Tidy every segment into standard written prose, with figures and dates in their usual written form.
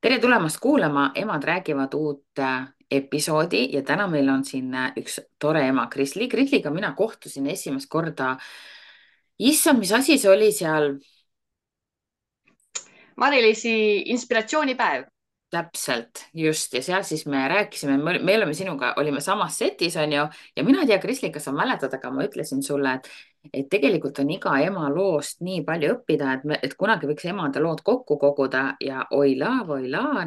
tere tulemast kuulama, Emad räägivad uut episoodi ja täna meil on siin üks tore ema, Krisli. Krisliga mina kohtusin esimest korda. Issand, mis asi see oli seal? Mari-Liisi inspiratsioonipäev. Täpselt, just. Ja seal siis me rääkisime, me oleme sinuga, olime samas setis, on ju. Ja mina ei tea, Krisli, kas sa mäletad, aga ma ütlesin sulle, et tegelikult on iga ema loost nii palju õppida, et kunagi võiks emade lood kokku koguda ja oilaa,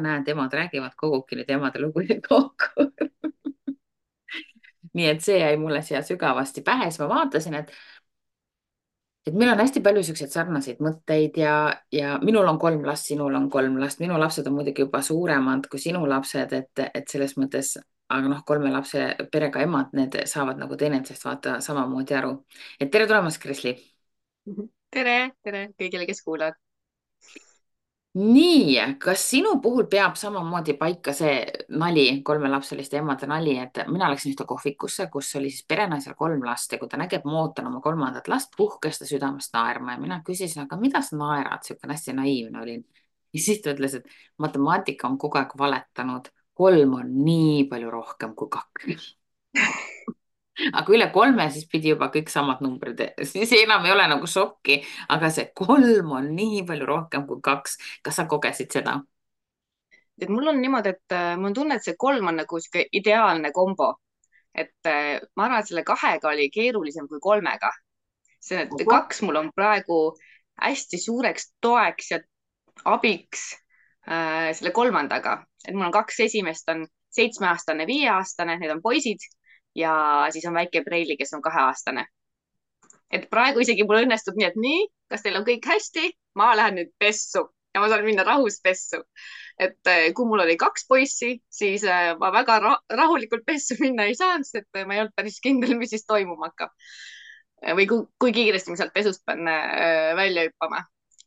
näed, emad räägivad, kogubki nüüd emade lugusid kokku. Nii et see jäi mulle siia sügavasti pähe, siis ma vaatasin, et meil on hästi palju siukseid sarnaseid mõtteid ja minul on 3 last, sinul on 3 last, minu lapsed on muidugi juba suuremad kui sinu lapsed, et selles mõttes, aga noh, 3 lapse perega emad, need saavad nagu teineteisest vaata samamoodi aru. Et tere tulemast, Krisli. tere, tere kõigile, kes kuulavad. Nii, kas sinu puhul peab samamoodi paika see nali, 3 lapseliste emade nali, et mina läksin ühte kohvikusse, kus oli siis perenaisel 3 last ja kui ta nägi, et ma ootan oma 3. last, puhkes ta südamest naerma ja mina küsisin, aga mida sa naerad, siukene hästi naiivne olin. Ja siis ta ütles, et matemaatika on kogu aeg valetanud, 3 on nii palju rohkem kui 2. Aga üle 3, siis pidi juba kõik samad numbrid, siis enam ei ole nagu šokki, aga see 3 on nii palju rohkem kui 2. Kas sa kogesid seda? Et mul on niimoodi, et mul on tunne, et see 3 on nagu sihuke ideaalne kombo. Et ma arvan, et selle 2-ga oli keerulisem kui 3-ga. See, et 2 mul on praegu hästi suureks toeks ja abiks selle 3-ga. Et mul on 2 esimest on 7-aastane, 5-aastane, need on poisid ja siis on väike Preili, kes on 2-aastane. Et praegu isegi mul õnnestub nii, et nii, kas teil on kõik hästi? Ma lähen nüüd pessu ja ma saan minna rahus pessu. Et kui mul oli 2 poissi, siis ma väga rahulikult pessu minna ei saanud, sest et ma ei olnud päris kindel, mis siis toimuma hakkab. Või kui kiiresti ma sealt pesust pean välja hüppama.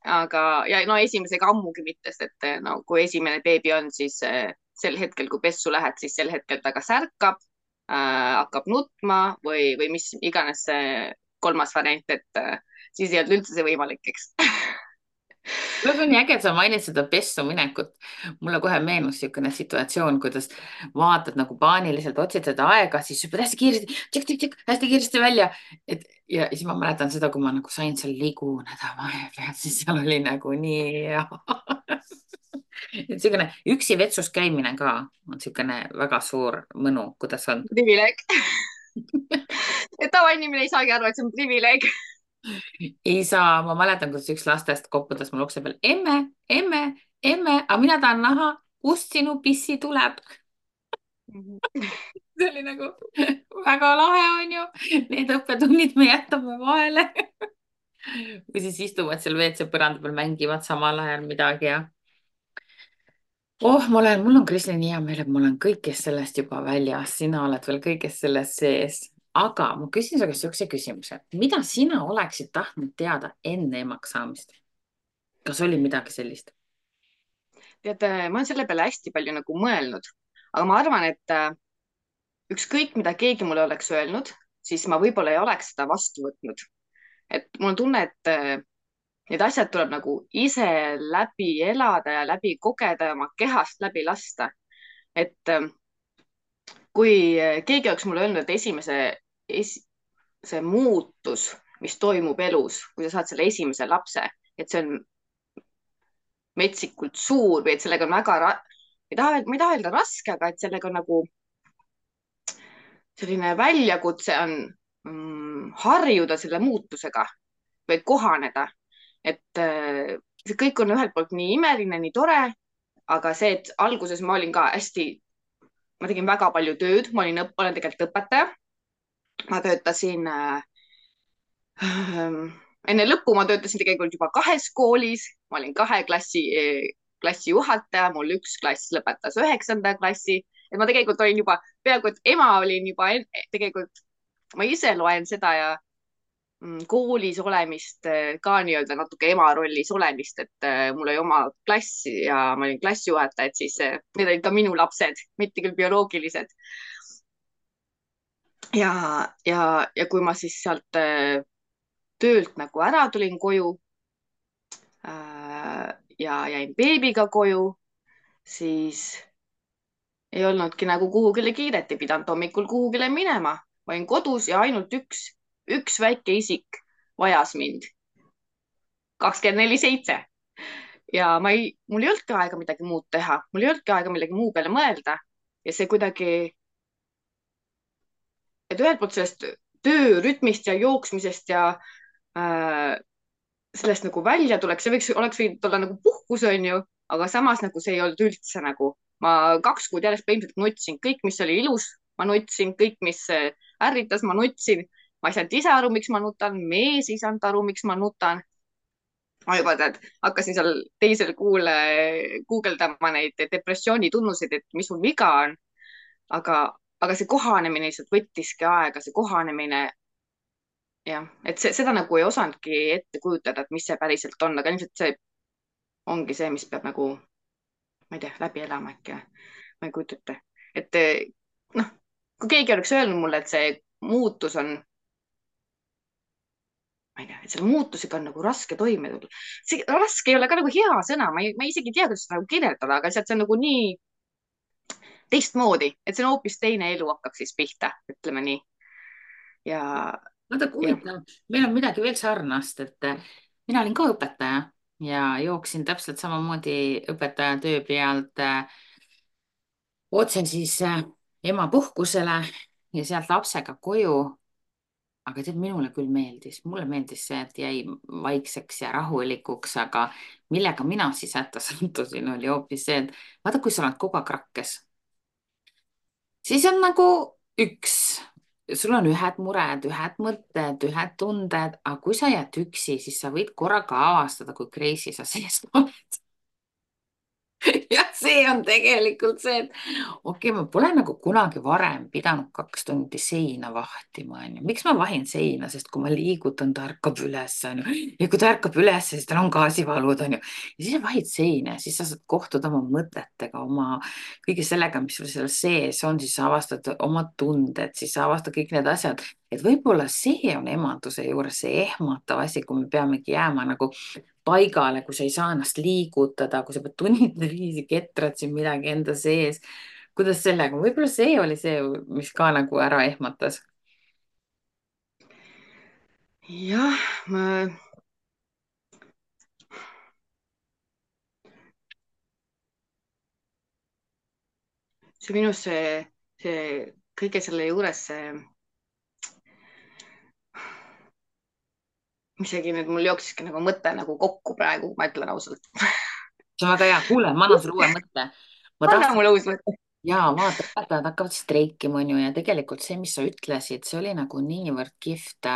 Aga, ja no esimesega ammugi mitte, sest et no kui esimene beebi on, siis sel hetkel, kui pessu lähed, siis sel hetkel ta kas ärkab, hakkab nutma või mis iganes see 3. variant, et siis ei olnud üldse see võimalik, eks. see on nii äge, et sa mainid seda pessu minekut. Mulle kohe meenus niisugune situatsioon, kuidas vaatad nagu paaniliselt, otsid seda aega, siis hüppad hästi kiiresti, hästi kiiresti välja. Ja siis ma mäletan seda, kui ma nagu sain seal liguneda vahepeal, siis seal oli nagu nii hea. Et niisugune üksi vetsus käimine ka on niisugune väga suur mõnu, kuidas on? Privileeg. Et tavainimene ei saagi aru, et see on privileeg. Ei saa, ma mäletan, kuidas üks lastest koputas mul ukse peal, emme, aga mina tahan näha, kust sinu pissi tuleb. See oli nagu väga lahe, on ju. Need õppetunnid me jätame vahele. Või siis istuvad seal WC põranda peal, mängivad samal ajal midagi ja. Mul on Krisli nii hea meel, et ma olen kõigest sellest juba väljas, sina oled veel kõigest sellest sees. Aga ma küsin su käest niisuguse küsimuse, mida sina oleksid tahtnud teada enne emaks saamist? Kas oli midagi sellist? tead, ma olen selle peale hästi palju nagu mõelnud, aga ma arvan, et ükskõik, mida keegi mulle oleks öelnud, siis ma võib-olla ei oleks seda vastu võtnud. Et mul on tunne, et need asjad tuleb nagu ise läbi elada ja läbi kogeda ja oma kehast läbi lasta. Et kui keegi oleks mulle öelnud, et see muutus, mis toimub elus, kui sa saad selle esimese lapse, et see on metsikult suur või et sellega on ma ei taha öelda raske, aga et sellega on nagu selline väljakutse on harjuda selle muutusega või kohaneda. Et see kõik on ühelt poolt nii imeline, nii tore, aga see, et alguses ma olin ka hästi, ma tegin väga palju tööd, olen tegelikult õpetaja. Ma töötasin enne lõppu ma töötasin tegelikult juba 2 koolis, ma olin 2 klassi juhataja, mul 1 klass lõpetas 9. klassi, et ma tegelikult olin juba peaaegu, et ema olin juba tegelikult, ma ise loen seda ja koolis olemist ka nii-öelda natuke ema rollis olemist, et mul oli oma klass ja ma olin klassijuhataja, et siis need olid ka minu lapsed, mitte küll bioloogilised. Ja kui ma siis sealt töölt nagu ära tulin koju ja jäin beebiga koju, siis ei olnudki nagu kuhugile kiiret, ei pidanud hommikul kuhugile minema. Ma olin kodus ja ainult üks väike isik vajas mind 24/7 ja mul ei olnudki aega midagi muud teha, mul ei olnudki aega millegi muu peale mõelda ja see kuidagi, et ühelt poolt sellest töörütmist ja jooksmisest ja äh, sellest nagu välja tuleks, oleks võinud olla nagu puhkus, onju, aga samas nagu see ei olnud üldse nagu, ma 2 kuud järjest põhimõtteliselt nutsin, kõik, mis oli ilus, ma nutsin, kõik, mis ärritas, ma nutsin. Ma ei saanud ise aru, miks ma nutan, mees ei saanud aru, miks ma nutan. Ma juba tead, hakkasin seal teisel kuul guugeldama neid depressiooni tunnuseid, et mis mul viga on. aga, aga see kohanemine lihtsalt võttiski aega, see kohanemine. Jah, et seda nagu ei osanudki ette kujutada, et mis see päriselt on, aga ilmselt see ongi see, mis peab nagu, ma ei tea, läbi elama äkki. Ma ei kujuta ette, et noh, kui keegi oleks öelnud mulle, et see muutus on, ma ei tea, et selle muutusega on nagu raske toime tulla. See raske ei ole ka nagu hea sõna, ma isegi ei tea, kuidas seda nagu kirjeldada, aga lihtsalt see on nagu nii teistmoodi, et see on hoopis teine elu hakkab siis pihta, ütleme nii. Ja, vaata, kui ja huvitav, meil on midagi veel sarnast, et mina olin ka õpetaja ja jooksin täpselt samamoodi õpetaja töö pealt otse siis emapuhkusele ja sealt lapsega koju. Aga tead, mulle meeldis see, et jäi vaikseks ja rahulikuks, aga millega mina siis hätta sattusin, oli hoopis see, et vaata, kui sa oled kogu aeg rakkes, siis on nagu üks, sul on ühed mured, ühed mõtted, ühed tunded, aga kui sa jääd üksi, siis sa võid korraga avastada, kui crazy sa sees oled. ja see on tegelikult see, et okei, ma pole nagu kunagi varem pidanud 2 tundi seina vahtima, onju. miks ma vahin seina, sest kui ma liigutan, ta ärkab üles, onju. ja kui ta ärkab üles, siis tal on gaasivalud, onju. ja siis sa vahid seina ja siis sa saad kohtuda oma mõtetega, oma kõige sellega, mis sul seal sees on, siis sa avastad oma tunded, siis sa avastad kõik need asjad. et võib-olla see on emaduse juures see ehmatav asi, kui me peamegi jääma nagu paigale, kui sa ei saa ennast liigutada, kui sa pead tunnide viisi ketrad siin midagi enda sees. kuidas sellega, võib-olla see oli see, mis ka nagu ära ehmatas. jah, see minu see kõige selle juures see, isegi nüüd mul jooksiski nagu mõte nagu kokku praegu, ma ütlen ausalt. see on väga hea, kuule, ma annan sulle uue mõtte. ma anna tahtsin, mulle uus mõte. jaa, vaata, õpetajad hakkavad streikima, onju, ja tegelikult see, mis sa ütlesid, see oli nagu niivõrd kihvt.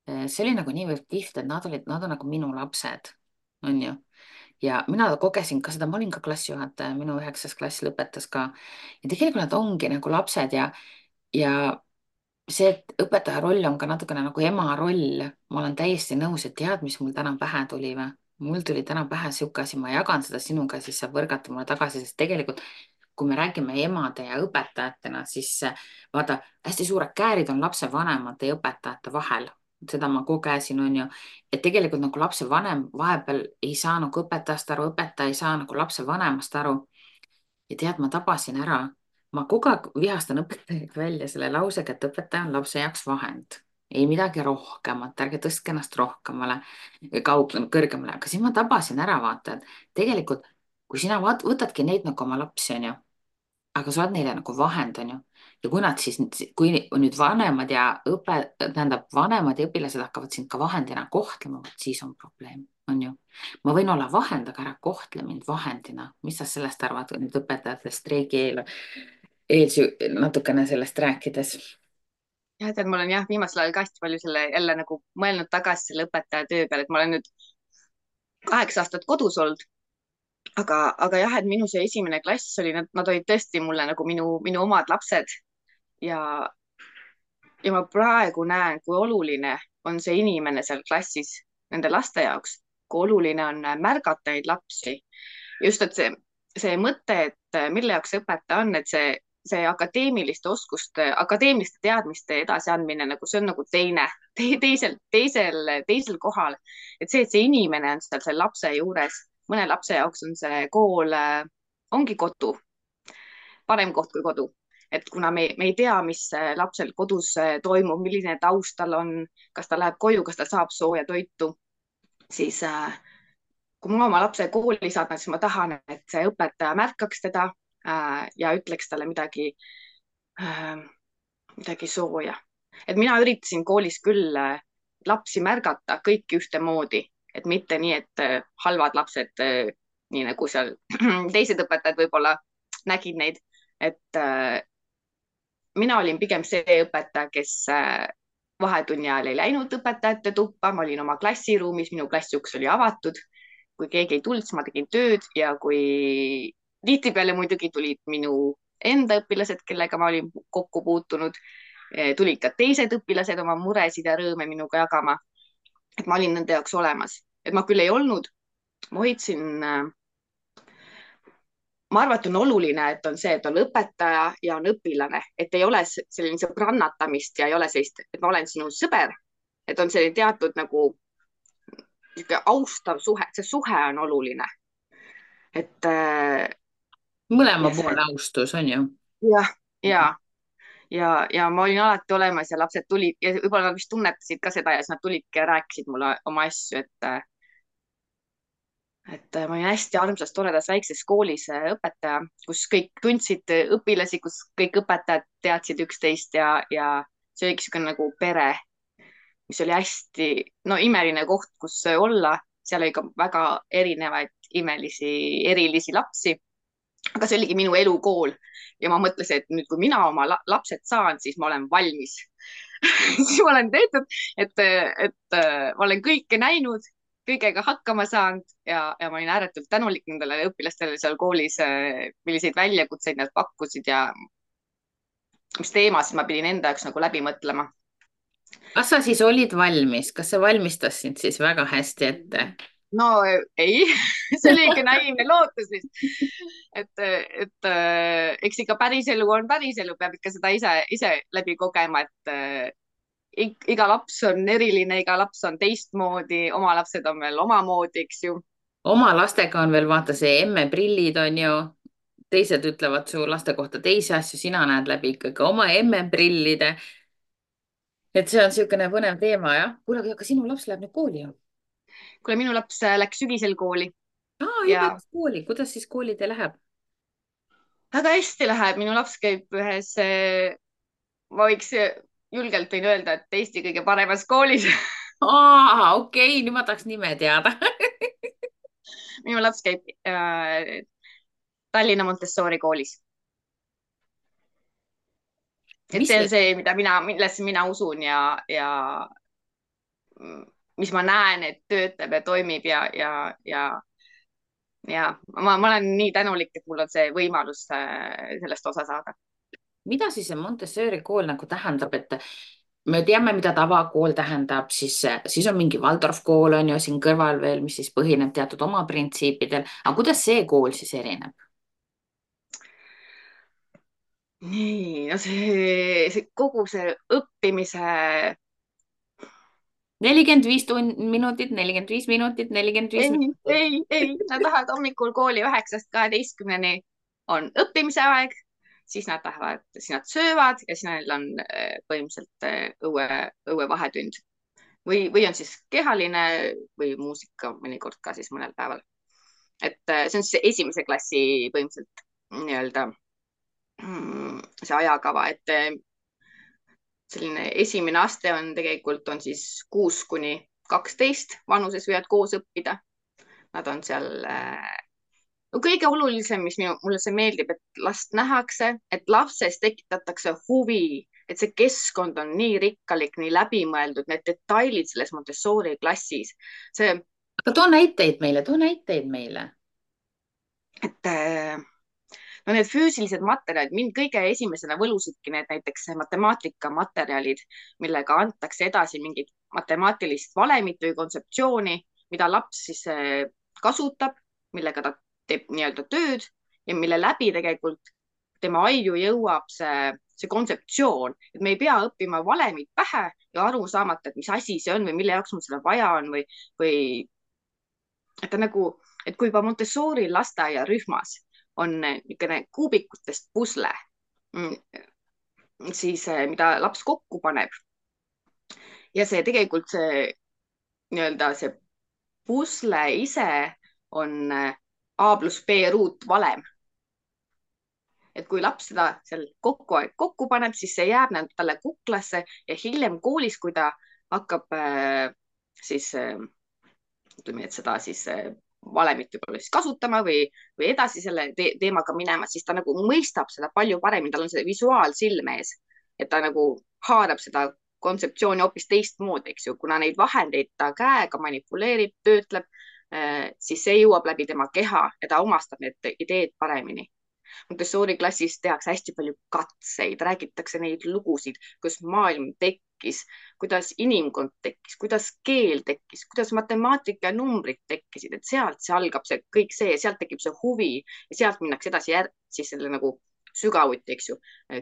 see oli nagu niivõrd kihvt, et nad on nagu minu lapsed, onju. ja mina kogesin ka seda, ma olin ka klassijuhataja, minu 9. klass lõpetas ka. ja tegelikult nad ongi nagu lapsed ja see, et õpetaja roll on ka natukene nagu ema roll, ma olen täiesti nõus, et tead, mis mul täna pähe tuli või? mul tuli täna pähe sihuke asi, ma jagan seda sinuga, siis saab võrgata mulle tagasi, sest tegelikult kui me räägime emade ja õpetajatena, siis vaata, hästi suured käärid on lapsevanemate ja õpetajate vahel. seda ma kogesin, on ju, et tegelikult nagu lapsevanem vahepeal ei saa nagu õpetajast aru, õpetaja ei saa nagu lapsevanemast aru. ja tead, ma tabasin ära, ma kogu aeg vihastan õpetajaid välja selle lausega, et õpetaja on lapse jaoks vahend, ei midagi rohkemat, ärge tõstke ennast rohkemale, kõrgemale, aga siis ma tabasin ära, vaata, et tegelikult kui sina võtadki neid nagu oma lapsi, onju, aga sa oled neile nagu vahend, onju. ja kui nad siis, kui nüüd vanemad ja tähendab, vanemad ja õpilased hakkavad sind ka vahendina kohtlema, siis on probleem, onju. ma võin olla vahend, aga ära kohtle mind vahendina. mis sa sellest arvad nüüd õpetajate streigi natukene sellest rääkides? jah, tead, ma olen jah, viimasel ajal ka hästi palju selle jälle nagu mõelnud tagasi selle õpetaja töö peale, et ma olen nüüd 8 aastat kodus olnud. aga jah, et minu see esimene klass oli, nad olid tõesti mulle nagu minu omad lapsed ja, ja ma praegu näen, kui oluline on see inimene seal klassis nende laste jaoks, kui oluline on märgata neid lapsi. just, et see mõte, et mille jaoks see õpetaja on, et see akadeemiliste oskuste, akadeemiliste teadmiste edasiandmine, nagu see on nagu teisel kohal. et see inimene on seal selle lapse juures, mõne lapse jaoks on see kool ongi kodu, parem koht kui kodu. Et kuna me ei tea, mis lapsel kodus toimub, milline taust tal on, kas ta läheb koju, kas ta saab sooja toitu, siis kui ma oma lapse kooli saadan, siis ma tahan, et see õpetaja märkaks teda ja ütleks talle äh, midagi sooja. Et mina üritasin koolis küll lapsi märgata kõiki ühtemoodi, et mitte nii, et halvad lapsed, nii nagu seal teised õpetajad võib-olla nägid neid, et mina olin pigem see õpetaja, kes vahetunni ajal ei läinud õpetajate tuppa, ma olin oma klassiruumis, minu klassiuks oli avatud. Kui keegi ei tulnud, siis ma tegin tööd ja kui tihtipeale muidugi tulid minu enda õpilased, kellega ma olin kokku puutunud, tulid ka teised õpilased oma muresid ja rõõme minuga jagama. Et ma olin nende jaoks olemas, et ma küll ei olnud, ma hoidsin ma arvan, et on oluline, et on see, et on õpetaja ja on õpilane, et ei ole selline sõbrannatamist ja ei ole sellist, et ma olen sinu sõber, et on selline teatud nagu austav suhe, see suhe on oluline. Et mõlema ja see, poole austus on ju. jah, ja ma olin alati olemas ja lapsed tulid ja võib-olla nad vist tunnetasid ka seda ja siis nad tulidki ja rääkisid mulle oma asju, et ma olin hästi armsas, toredas väikses koolis õpetaja, kus kõik tundsid õpilasi, kus kõik õpetajad teadsid üksteist ja see oligi niisugune nagu pere, mis oli hästi, no imeline koht, kus olla. Seal oli ka väga erinevaid erilisi lapsi. Aga see oligi minu elukool ja ma mõtlesin, et nüüd, kui mina oma lapsed saan, siis ma olen valmis. siis ma olen tehtud, et ma olen kõike näinud, kõigega hakkama saanud ja ma olin ääretult tänulik nendele õpilastele seal koolis, milliseid väljakutseid nad pakkusid ja mis teemasid ma pidin enda jaoks nagu läbi mõtlema. kas sa siis olid valmis, kas see valmistas sind siis väga hästi ette? No ei, see oli ikka naiivne lootus vist. et eks ikka päriselu on päriselu, peab ikka seda ise läbi kogema, et iga laps on eriline, iga laps on teistmoodi, oma lapsed on veel omamoodi, eks ju. Oma lastega on veel vaata see emmeprillid on ju, teised ütlevad su laste kohta teisi asju, sina näed läbi ikkagi oma emmeprillide. et see on niisugune põnev teema jah. kuule, aga sinu laps läheb nüüd kooli ju? kuule, minu laps läks sügisel kooli Juba ja läks kooli, kuidas siis koolidel läheb? väga hästi läheb, minu laps käib ühes, ma võiks julgelt võin öelda, et Eesti kõige paremas koolis. Okei, nüüd ma tahaks nime teada. minu laps käib Tallinna Montessori koolis. et mis see on see, see, millesse mina usun ja mis ma näen, et töötab ja toimib ja ma olen nii tänulik, et mul on see võimalus sellest osa saada. mida siis see Montessori kool nagu tähendab, et me teame, mida tavakool tähendab, siis on mingi Waldorf kool on ju siin kõrval veel, mis siis põhineb teatud oma printsiipidel, aga kuidas see kool siis erineb? nii, no see kogu see õppimise 45 minutit, 45 minutit, 45 ei, minutit. nad lähevad hommikul kooli 9-12 on õppimise aeg, siis nad lähevad, siis nad söövad ja siis neil on põhimõtteliselt õue vahetund või on siis kehaline või muusika mõnikord ka siis mõnel päeval. et see on siis esimese klassi põhimõtteliselt nii-öelda see ajakava, et selline esimene aste on tegelikult on siis 6-12 vanuses võivad koos õppida. Nad on seal no kõige olulisem, mis mulle see meeldib, et last nähakse, et lapses tekitatakse huvi, et see keskkond on nii rikkalik, nii läbimõeldud, need detailid selles Montessori klassis, see, aga too näiteid meile. et no need füüsilised materjalid, mind kõige esimesena võlusidki need näiteks matemaatikamaterjalid, millega antakse edasi mingit matemaatilist valemit või kontseptsiooni, mida laps siis kasutab, millega ta teeb nii-öelda tööd ja mille läbi tegelikult tema aiu jõuab see kontseptsioon, et me ei pea õppima valemit pähe ja aru saamata, et mis asi see on või mille jaoks mul seda vaja on või et ta nagu, et kui juba Montessori lasteaiarühmas on niisugune kuubikutest pusle, siis mida laps kokku paneb. Ja see tegelikult see nii-öelda see pusle ise on A pluss B ruutvalem. Et kui laps seda seal kokku paneb, siis see jääb talle kuklasse ja hiljem koolis, kui ta hakkab siis ütleme, et seda siis valemit võib-olla siis kasutama või edasi selle teemaga minema, siis ta nagu mõistab seda palju paremini, tal on see visuaalsilm ees, et ta nagu haarab seda kontseptsiooni hoopis teistmoodi, eks ju, kuna neid vahendeid ta käega manipuleerib, töötleb, siis see jõuab läbi tema keha ja ta omastab need ideed paremini. Montessori klassis tehakse hästi palju katseid, räägitakse neid lugusid, kuidas maailm tekkis, kuidas inimkond tekkis, kuidas keel tekkis, kuidas matemaatika ja numbrid tekkisid, et sealt see algab see kõik see, sealt tekib see huvi ja sealt minnakse edasi siis selle nagu sügavuti, eks ju,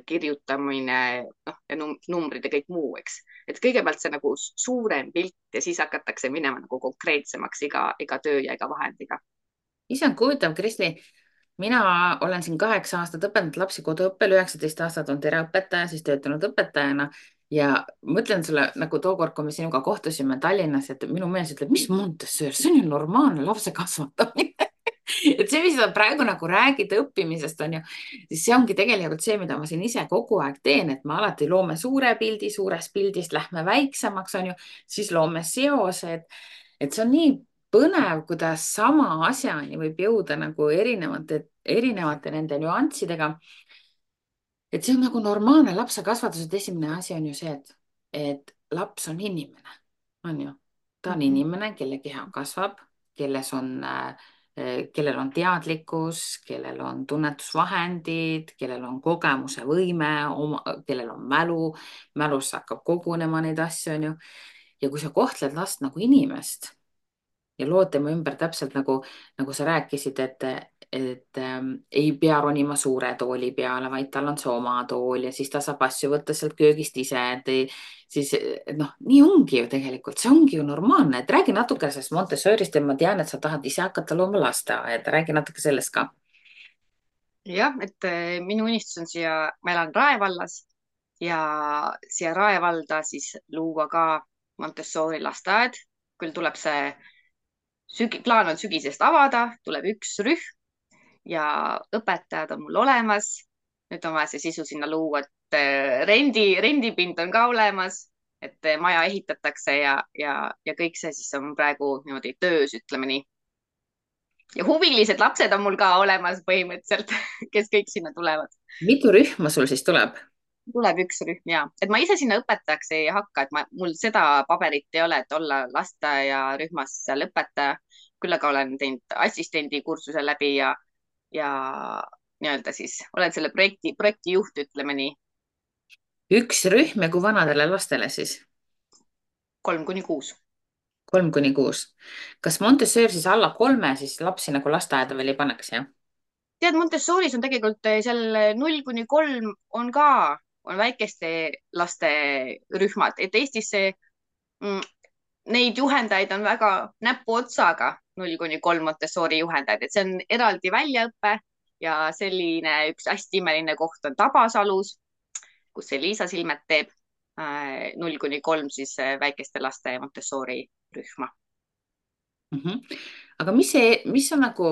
kirjutamine, noh, ja numbrid ja kõik muu, eks. Et kõigepealt see nagu suurem pilt ja siis hakatakse minema nagu konkreetsemaks iga töö ja iga vahendiga. Issand, kui huvitav, Krisli. Mina olen siin 8 aastat õpetanud lapsi koduõppel, 19 aastat on pereõpetaja, siis töötanud õpetajana ja mõtlen sulle nagu tookord, kui me sinuga kohtusime Tallinnas, et minu mees ütleb, mis Montessori, see on ju normaalne lapse kasvatamine. Et see, mis sa praegu nagu räägid õppimisest, on ju, siis see ongi tegelikult see, mida ma siin ise kogu aeg teen, et me alati loome suure pildi, suurest pildist lähme väiksemaks, on ju, siis loome seosed, et see on nii põnev, kuidas sama asjani võib jõuda nagu erinevate nende nüanssidega. Et see on nagu normaalne lapse kasvatuse esimene asi on ju see, et laps on inimene, on ju. Ta on inimene, kelle keha kasvab, kellel on teadlikkus, kellel on tunnetusvahendid, kellel on kogemuse võime, kellel on mälus hakkab kogunema neid asju, on ju. Ja kui sa kohtled last nagu inimest ja lood tema ümber täpselt nagu sa rääkisid, et ei pea ronima suure tooli peale, vaid tal on see oma tool ja siis ta saab asju võtta sealt köögist ise, siis noh, nii ongi ju tegelikult, see ongi ju normaalne, et räägi natuke sellest Montessorist ja ma tean, et sa tahad ise hakata looma lasteaeda, räägi natuke sellest ka. Jah, et minu unistus on ma elan Rae vallas ja siia Rae valda siis luua ka Montessori lasteaed. Küll tuleb plaan on sügisest avada, tuleb üks rühm ja õpetajad on mul olemas. Nüüd on vaja see sisu sinna luua, et rendipind on ka olemas, et maja ehitatakse ja kõik see siis on praegu niimoodi töös, ütleme nii. Ja huvilised lapsed on mul ka olemas põhimõtteliselt, kes kõik sinna tulevad. Mitu rühma sul siis tuleb? Tuleb üks rühm ja, et ma ise sinna õpetajaks ei hakka, et mul seda paberit ei ole, et olla lasteaiarühmas seal õpetaja. Küll aga olen teinud assistendi kursuse läbi ja nii-öelda siis olen selle projekti juht, ütleme nii. Üks rühm ja kui vanadele lastele siis? 3–6. 3–6. Kas Montessori siis alla 3 siis lapsi nagu lasteaeda veel ei paneks, jah? Tead, Montessoris on tegelikult seal 0–3 on väikeste laste rühmad, et Eestis neid juhendajaid on väga näpuotsaga, 0–3 Montessori juhendajaid, et see on eraldi väljaõpe ja selline üks hästi imeline koht on Tabasalus, kus Liisa Silmet teeb 0–3 siis väikeste laste Montessori rühma. Aga mis on nagu,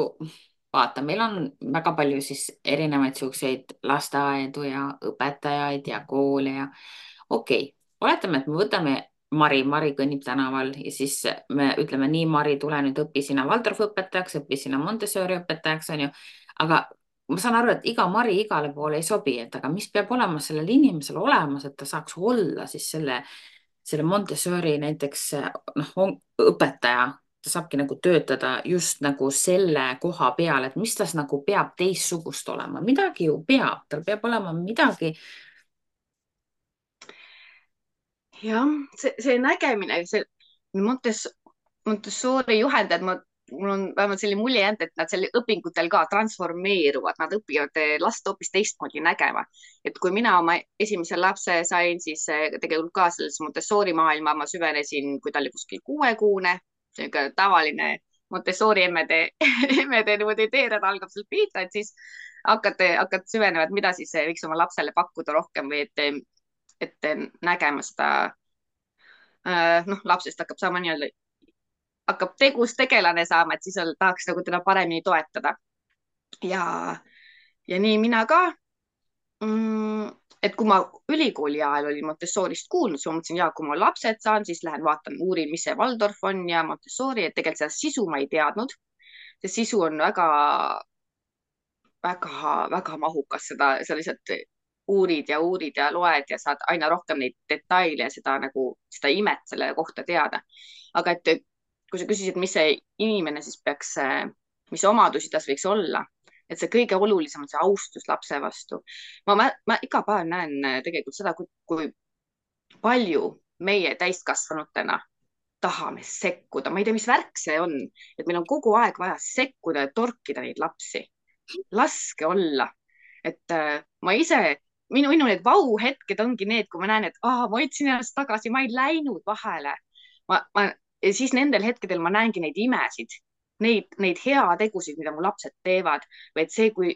vaata, meil on väga palju siis erinevaid siukseid lasteaedu ja õpetajaid ja koole ja okei, oletame, et me võtame Mari kõnnib tänaval ja siis me ütleme nii, Mari, tule nüüd õpi sina Waldorfi õpetajaks, õpi sina Montessori õpetajaks, on ju. Aga ma saan aru, et iga Mari igale poole ei sobi, et aga mis peab olema sellel inimesel olemas, et ta saaks olla siis selle Montessori näiteks noh, õpetaja, ta saabki nagu töötada just nagu selle koha peal, et mis tas nagu peab teistsugust olema, midagi ju peab, tal peab olema midagi. Jah, see nägemine, see Montessori juhendajad, mul on vähemalt selline mulje jäänud, et nad seal õpingutel ka transformeeruvad, nad õpivad last hoopis teistmoodi nägema. Et kui mina oma esimese lapse sain, siis tegelikult ka selles Montessori maailma ma süvenesin, kui ta oli kuskil 6-kuune, tavaline Montessori emmede niimoodi teerada algab sealt pihta, et siis hakkad süvenema, et mida siis võiks oma lapsele pakkuda rohkem või et nägema seda, noh, lapsest hakkab saama nii-öelda, hakkab tegus tegelane saama, et siis tahaks nagu teda paremini toetada. ja, ja nii mina ka et kui ma ülikooli ajal olin Montessorist kuulnud, siis ma mõtlesin, ja kui ma lapsed saan, siis lähen vaatan, uurin, mis see Waldorf on ja Montessori, et tegelikult seda sisu ma ei teadnud. See sisu on väga, väga, väga mahukas, sa lihtsalt uurid ja loed ja saad aina rohkem neid detaile ja seda nagu, seda imet selle kohta teada. aga et kui sa küsisid, mis see inimene siis peaks, mis omadusi tas võiks olla, et see kõige olulisem on see austus lapse vastu. Ma iga päev näen tegelikult seda, kui palju meie täiskasvanutena tahame sekkuda. Ma ei tea, mis värk see on, et meil on kogu aeg vaja sekkuda ja torkida neid lapsi. Laske olla. Et ma ise, minu need vau-hetked ongi need, kui ma näen, et ma hoidsin ennast tagasi, ma ei läinud vahele. Ja siis nendel hetkedel ma näengi neid imesid, neid heategusid, mida mu lapsed teevad, või et see, kui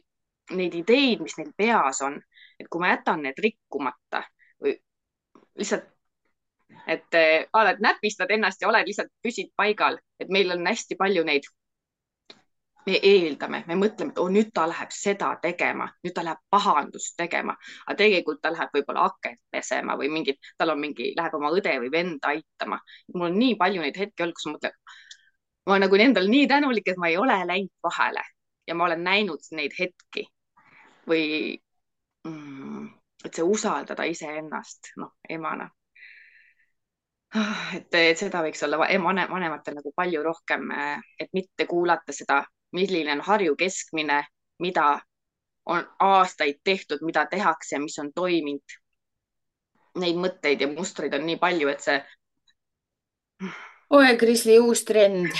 neid ideid, mis neil peas on, et kui ma jätan need rikkumata või lihtsalt, et oled, näpistad ennast ja oled lihtsalt püsid paigal, et meil on hästi palju neid, me eeldame, me mõtleme, et nüüd ta läheb seda tegema, nüüd ta läheb pahandust tegema, aga tegelikult ta läheb võib-olla akent pesema või tal on läheb oma õde või venda aitama. Mul on nii palju neid hetki olnud, kus ma mõtlen, ma olen nagu endal nii tänulik, et ma ei ole läinud vahele ja ma olen näinud neid hetki või et see usaldada iseennast, noh, emana. Et seda võiks olla vanematel nagu palju rohkem, et mitte kuulata seda, milline on Harju keskmine, mida on aastaid tehtud, mida tehakse ja mis on toiminud. Neid mõtteid ja mustreid on nii palju, et see. Oe, Krisli, uus trend.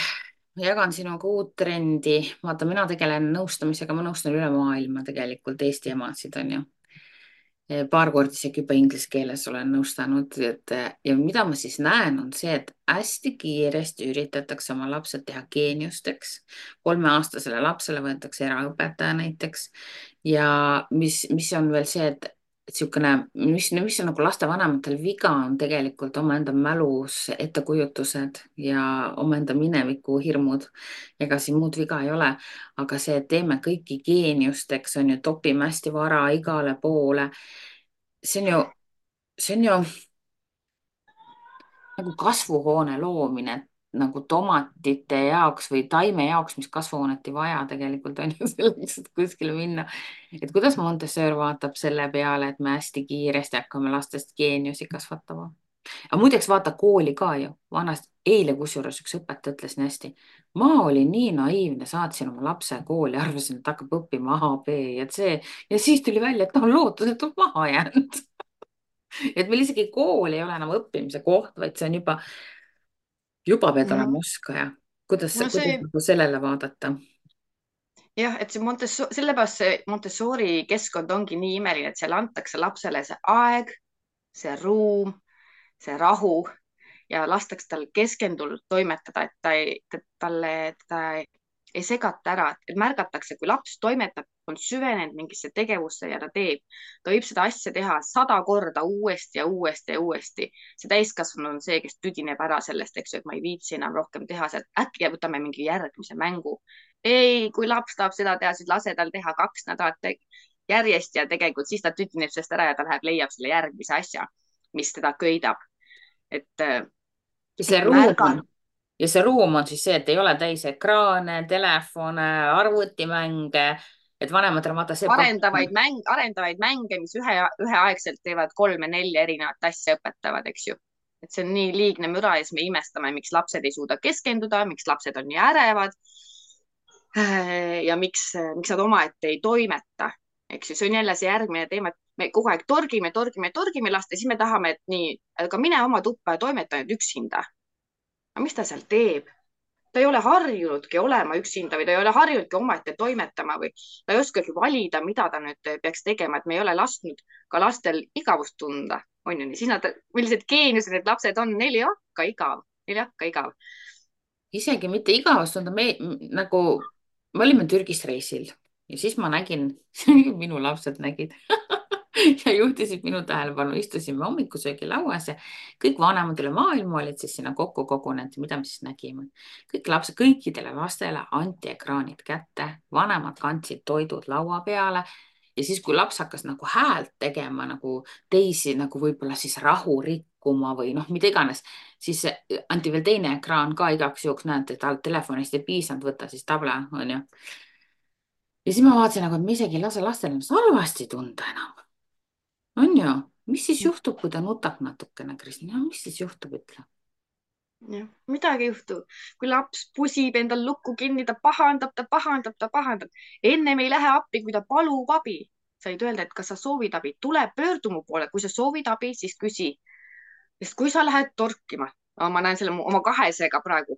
Jagan sinuga uut trendi. Vaata, mina tegelen nõustamisega, ma nõustan üle maailma tegelikult Eesti emasid, on ju. Paar korda isegi juba inglise keeles olen nõustanud, ja mida ma siis näen, on see, et hästi kiiresti üritatakse oma lapsed teha geeniusteks. 3-aastasele lapsele võetakse eraõpetaja näiteks ja mis on veel see, et niisugune, mis on nagu lastevanematel viga, on tegelikult omaenda mälus ettekujutused ja omaenda mineviku hirmud. Ega siin muud viga ei ole, aga see, et teeme kõiki geeniusteks, on ju, topime hästi vara igale poole. See on ju nagu kasvuhoone loomine, nagu tomatite jaoks või taime jaoks, mis kasvuhoonet ei vaja tegelikult on ju selleks, et kuskile minna. Et kuidas Montessori vaatab selle peale, et me hästi kiiresti hakkame lastest geeniusi kasvatama. Aga muideks vaata kooli ka ju. Vanasti, eile kusjuures üks õpetaja ütles nii hästi. Ma olin nii naiivne, saatsin oma lapse kooli, arvasin, et hakkab õppima A, B ja C. Ja siis tuli välja, et ta on lootusetult maha jäänud. Et meil isegi kool ei ole enam õppimise koht, vaid see on juba pead olema oskaja. Kuidas nagu sellele vaadata? Jah, et see sellepärast see Montessori keskkond ongi nii imeline, et seal antakse lapsele see aeg, see ruum, see rahu ja lastakse tal keskendunult toimetada, et teda ei segata ära, et märgatakse, kui laps toimetab, on süvenenud mingisse tegevusse ja ta teeb. Ta võib seda asja teha 100 korda uuesti ja uuesti ja uuesti. See täiskasvanu on see, kes tüdineb ära sellest, eks ju, et ma ei viitsi enam rohkem teha sealt. Äkki võtame mingi järgmise mängu. Ei, kui laps tahab seda teha, siis lase tal teha 2 nädalat järjest ja tegelikult siis ta tüdineb sellest ära ja ta läheb, leiab selle järgmise asja, mis teda köidab. Ja see ruum on siis see, et ei ole täis ekraane, telefone, arvutimänge, et vanematel vaata see arendavaid mänge, mis üheaegselt teevad 3-4 erinevat asja, õpetavad, eks ju. Et see on nii liigne müra ja siis me imestame, miks lapsed ei suuda keskenduda, miks lapsed on nii ärevad ja miks nad omaette ei toimeta, eks ju. See on jälle see järgmine teema, et me kogu aeg torgime last ja siis me tahame, et nii, aga mine oma tuppa ja toimeta nüüd üksinda. Aga mis ta seal teeb? Ta ei ole harjunudki olema üksinda või ta ei ole harjunudki omaette toimetama või ta ei oskagi valida, mida ta nüüd peaks tegema, et me ei ole lasknud ka lastel igavust tunda, on ju nii. Siis millised geeniused need lapsed on, neil ei hakka igav. isegi mitte igavust tunda, nagu me olime Türgis reisil ja siis ma nägin minu lapsed nägid ja juhtisid minu tähelepanu, istusime hommikusöögilauas ja kõik vanemad üle maailma olid siis sinna kokku kogunenud. Mida me siis nägime? kõik lapsed, kõikidele lastele anti ekraanid kätte, vanemad kandsid toidud laua peale ja siis, kui laps hakkas nagu häält tegema nagu teisi nagu võib-olla siis rahu rikkuma või noh, mida iganes, siis anti veel teine ekraan ka igaks juhuks, näed, et telefonist ei piisanud, võtta siis tabla, onju. ja siis ma vaatasin nagu, et me isegi ei lase lastel ennast halvasti tunda enam. on ju, mis siis juhtub, kui ta nutab natukene, Kristina, mis siis juhtub, ütle? jah, midagi ei juhtu. Kui laps pusib endal lukku kinni, ta pahandab, ta pahandab, ta pahandab. ennem ei lähe appi, kui ta palub abi. Said öelda, et kas sa soovid abi, tule pöördu mu poole, kui sa soovid abi, siis küsi. sest kui sa lähed torkima, ma näen selle oma kahesega praegu,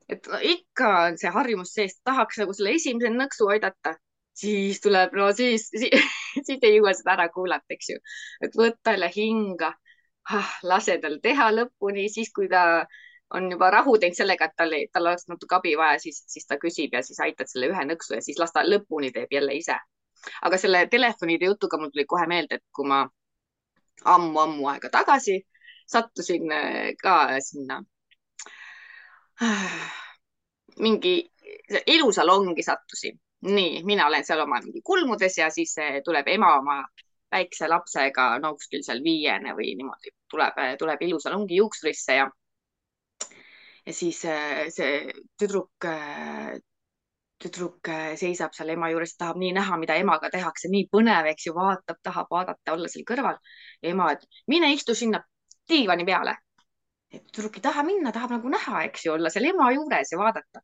et no, ikka on see harjumus sees, tahaks nagu selle esimese nõksu aidata, siis tuleb, no siis ei jõua seda ära kuulata, eks ju. et võtta jälle hinga, lase tal teha lõpuni, siis kui ta on juba rahu teinud sellega, et tal oleks natuke abi vaja, siis ta küsib ja siis aitad selle ühe nõksu ja siis las ta lõpuni teeb jälle ise. aga selle telefonide jutuga mul tuli kohe meelde, et kui ma ammu-ammu aega tagasi sattusin ka sinna mingi ilusalongi sattusin. nii, mina olen seal oma mingi kulmudes ja siis tuleb ema oma väikse lapsega, no kuskil seal 5 või niimoodi, tuleb ilusalongi juuksurisse ja siis see tüdruk seisab seal ema juures, tahab nii näha, mida emaga tehakse, nii põnev, eks ju, vaatab, tahab vaadata, olla seal kõrval. ja ema, et mine istu sinna diivani peale. tüdruk ei taha minna, tahab nagu näha, eks ju, olla seal ema juures ja vaadata.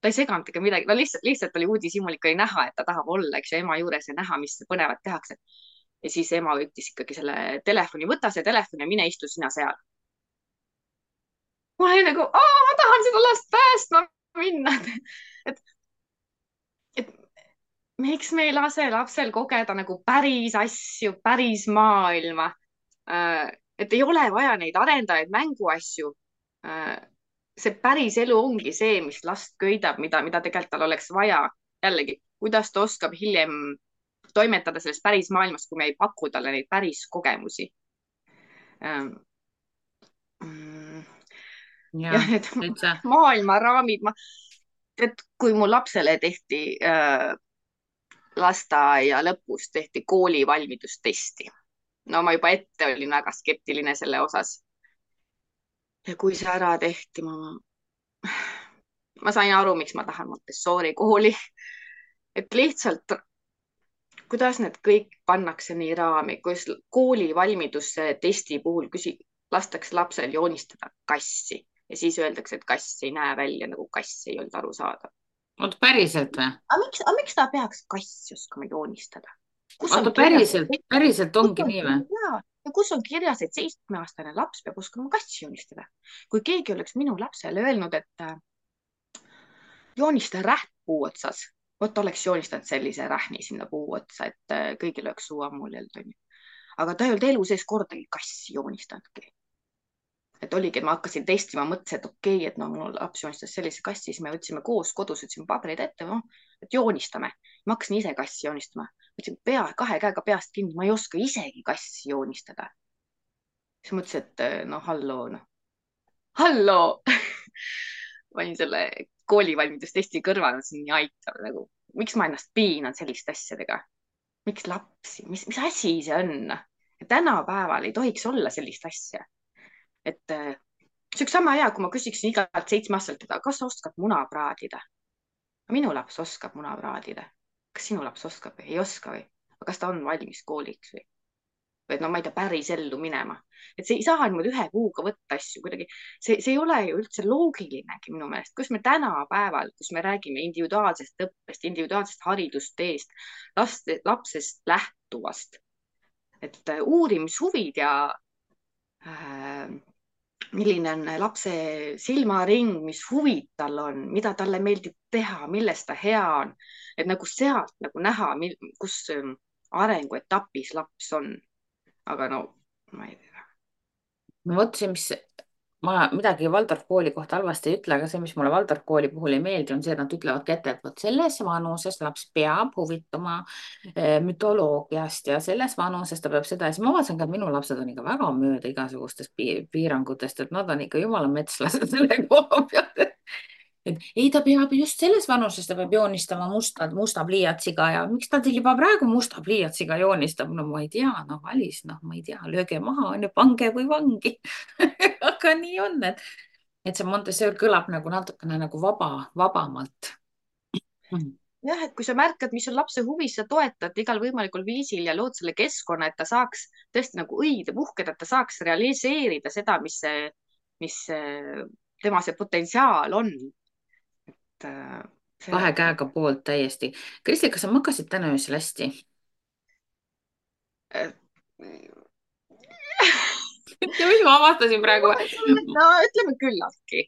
ta ei seganud ega midagi, no lihtsalt oli uudishimulik, oli näha, et ta tahab olla, eks ju, ema juures ja näha, mis põnevat tehakse. ja siis ema võttis ikkagi selle telefoni, võta see telefon ja mine istu sina seal. ma olin nagu, ma tahan seda last päästma minna. et, et miks me ei lase lapsel kogeda nagu päris asju, päris maailma? et ei ole vaja neid arendajaid mänguasju. see päris elu ongi see, mis last köidab, mida tegelikult tal oleks vaja. jällegi, kuidas ta oskab hiljem toimetada selles päris maailmas, kui me ei paku talle neid päris kogemusi. ja need täitsa. maailmaraamid, et kui mu lapsele tehti lasteaia lõpus tehti kooli valmidustesti. no ma juba ette olin väga skeptiline selle osas. ja kui see ära tehti, ma sain aru, miks ma tahan Montessori kooli. et lihtsalt, kuidas need kõik pannakse nii raami, kus kooli valmidustesti puhul lastakse lapsel joonistada kassi ja siis öeldakse, et kass ei näe välja nagu kass, ei olnud arusaadav. oota, päriselt või? aga miks ta peaks kassi oskama joonistada? oota, päriselt ongi nii või? ja kus on kirjas, et 7-aastane laps peab oskama kassi joonistada? kui keegi oleks minu lapsele öelnud, et joonista räht puu otsas, vot oleks joonistanud sellise rähni sinna puu otsa, et kõigil oleks suu ammulljalt, onju. aga ta ei olnud elu sees kordagi kassi joonistanudki. et oligi, et ma hakkasin testima, mõtlesin, et okei, et no mul laps joonistas sellise kassi, siis me võtsime koos kodus, võtsime paberid ette, et joonistame. ma hakkasin ise kassi joonistama, võtsin kahe käega peast kinni, ma ei oska isegi kassi joonistada. siis mõtlesin, et no halloo panin selle koolivalmidustesti kõrvale, see on nii aitav nagu, miks ma ennast piinan selliste asjadega? miks lapsi, mis asi see on? tänapäeval ei tohiks olla sellist asja. et see oleks sama hea, kui ma küsiksin igalt 7-aastaselt, kas sa oskad muna praadida? minu laps oskab muna praadida. kas sinu laps oskab või ei oska või? aga kas ta on valmis kooliks või? või no ma ei tea, päris ellu minema. et see ei saa niimoodi ühe kuuga võtta asju kuidagi. see ei ole ju üldse loogilinegi minu meelest, kus me tänapäeval, kus me räägime individuaalsest õppest, individuaalsest haridusteest, lapsest lähtuvast, et uurimishuvid ja milline on lapse silmaring, mis huvid tal on, mida talle meeldib teha, milles ta hea on. et nagu sealt nagu näha, kus arenguetapis laps on. aga no ma ei tea. no vot see, mis ma midagi Waldorf kooli kohta halvasti ei ütle, aga see, mis mulle Waldorf kooli puhul ei meeldi, on see, et nad ütlevadki ette, et vot selles vanuses laps peab huvituma mütoloogiast ja selles vanuses ta peab seda ja siis ma vaatasin ka, et minu lapsed on ikka väga mööda igasugustest piirangutest, et nad on ikka jumala metslased selle koha pealt. Et ei, ta peab just selles vanuses, ta peab joonistama musta pliiatsiga ja miks ta teil juba praegu musta pliiatsiga joonistab? No ma ei tea, noh, Alice, noh, ma ei tea, lööge maha, onju, pange või vangi. aga nii on, et see Montessori kõlab nagu natukene nagu vabamalt. jah, et kui sa märkad, mis on lapse huvis, sa toetad igal võimalikul viisil ja lood selle keskkonna, et ta saaks tõesti nagu õide puhkeda, et ta saaks realiseerida seda, mis tema see potentsiaal on. et Kahe see käega poolt täiesti. Kristi, kas sa magasid täna öösel hästi? äh, ja mis ma avastasin praegu? no ütleme küllaltki.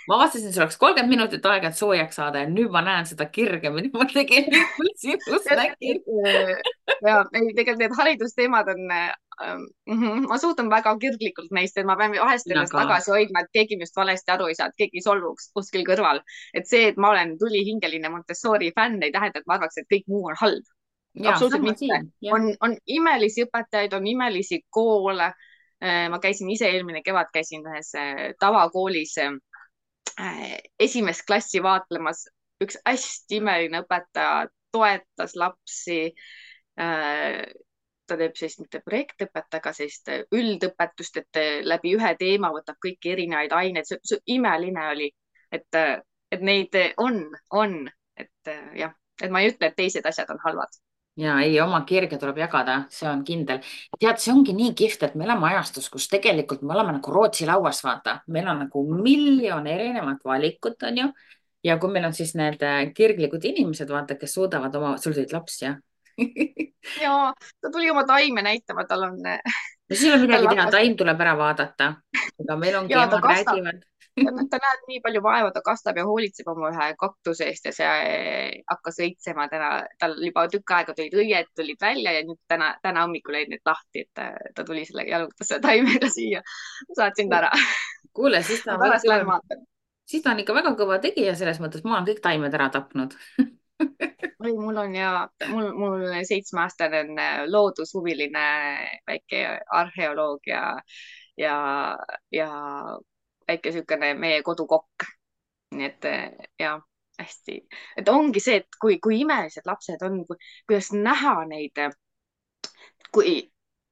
ma avastasin, sul oleks 30 minutit aega, et soojaks saada ja nüüd ma näen seda kirge, mida ma tegelikult sinus nägin. ja ei, tegelikult need haridusteemad on ma suhtun väga kirglikult neist, et ma pean vahest mina ennast ka. tagasi hoidma, et keegi minust valesti aru ei saa, et keegi solvuks kuskil kõrval. et see, et ma olen tulihingeline Montessori fänn, ei tähenda, et ma arvaks, et kõik muu on halb. ja Absoluutselt sama mitte. siin, jah. on imelisi õpetajaid, on imelisi koole. ma käisin ise eelmine kevad käisin ühes tavakoolis esimest klassi vaatlemas. üks hästi imeline õpetaja toetas lapsi. ta teeb sellist mitte projektõpet, aga sellist üldõpetust, et läbi ühe teema võtab kõiki erinevaid aineid. see imeline oli, et neid on, et jah, et ma ei ütle, et teised asjad on halvad. ja ei, oma kirge tuleb jagada, see on kindel. tead, see ongi nii kihvt, et me elame ajastus, kus tegelikult me oleme nagu Rootsi lauas, vaata, meil on nagu miljon erinevat valikut, onju. ja kui meil on siis need kirglikud inimesed, vaata, kes suudavad oma, sul tulid laps, jah? ja ta tuli oma taime näitama, tal on, no siis ei ole tal midagi teha, hakkas taim tuleb ära vaadata. aga meil ongi, ja ta emad kastab. räägivad. ta näeb nii palju vaeva, ta kastab ja hoolitseb oma ühe kaktuse eest ja see hakkas õitsema täna, tal juba tükk aega tulid õied tulid välja ja nüüd täna hommikul jäid need lahti, et ta tuli selle, jalutas selle taimega siia. saatsin ta ära. kuule, siis ta ma on väga pärast lähen kõva, vaatan. siis ta on ikka väga kõva tegija selles mõttes, ma olen kõik taimed ära tapnud. oi, mul on ja mul 7-aastane on loodushuviline väike arheoloog ja, ja väike niisugune meie kodukokk. nii et ja hästi, et ongi see, et kui imelised lapsed on, kuidas näha neid, kui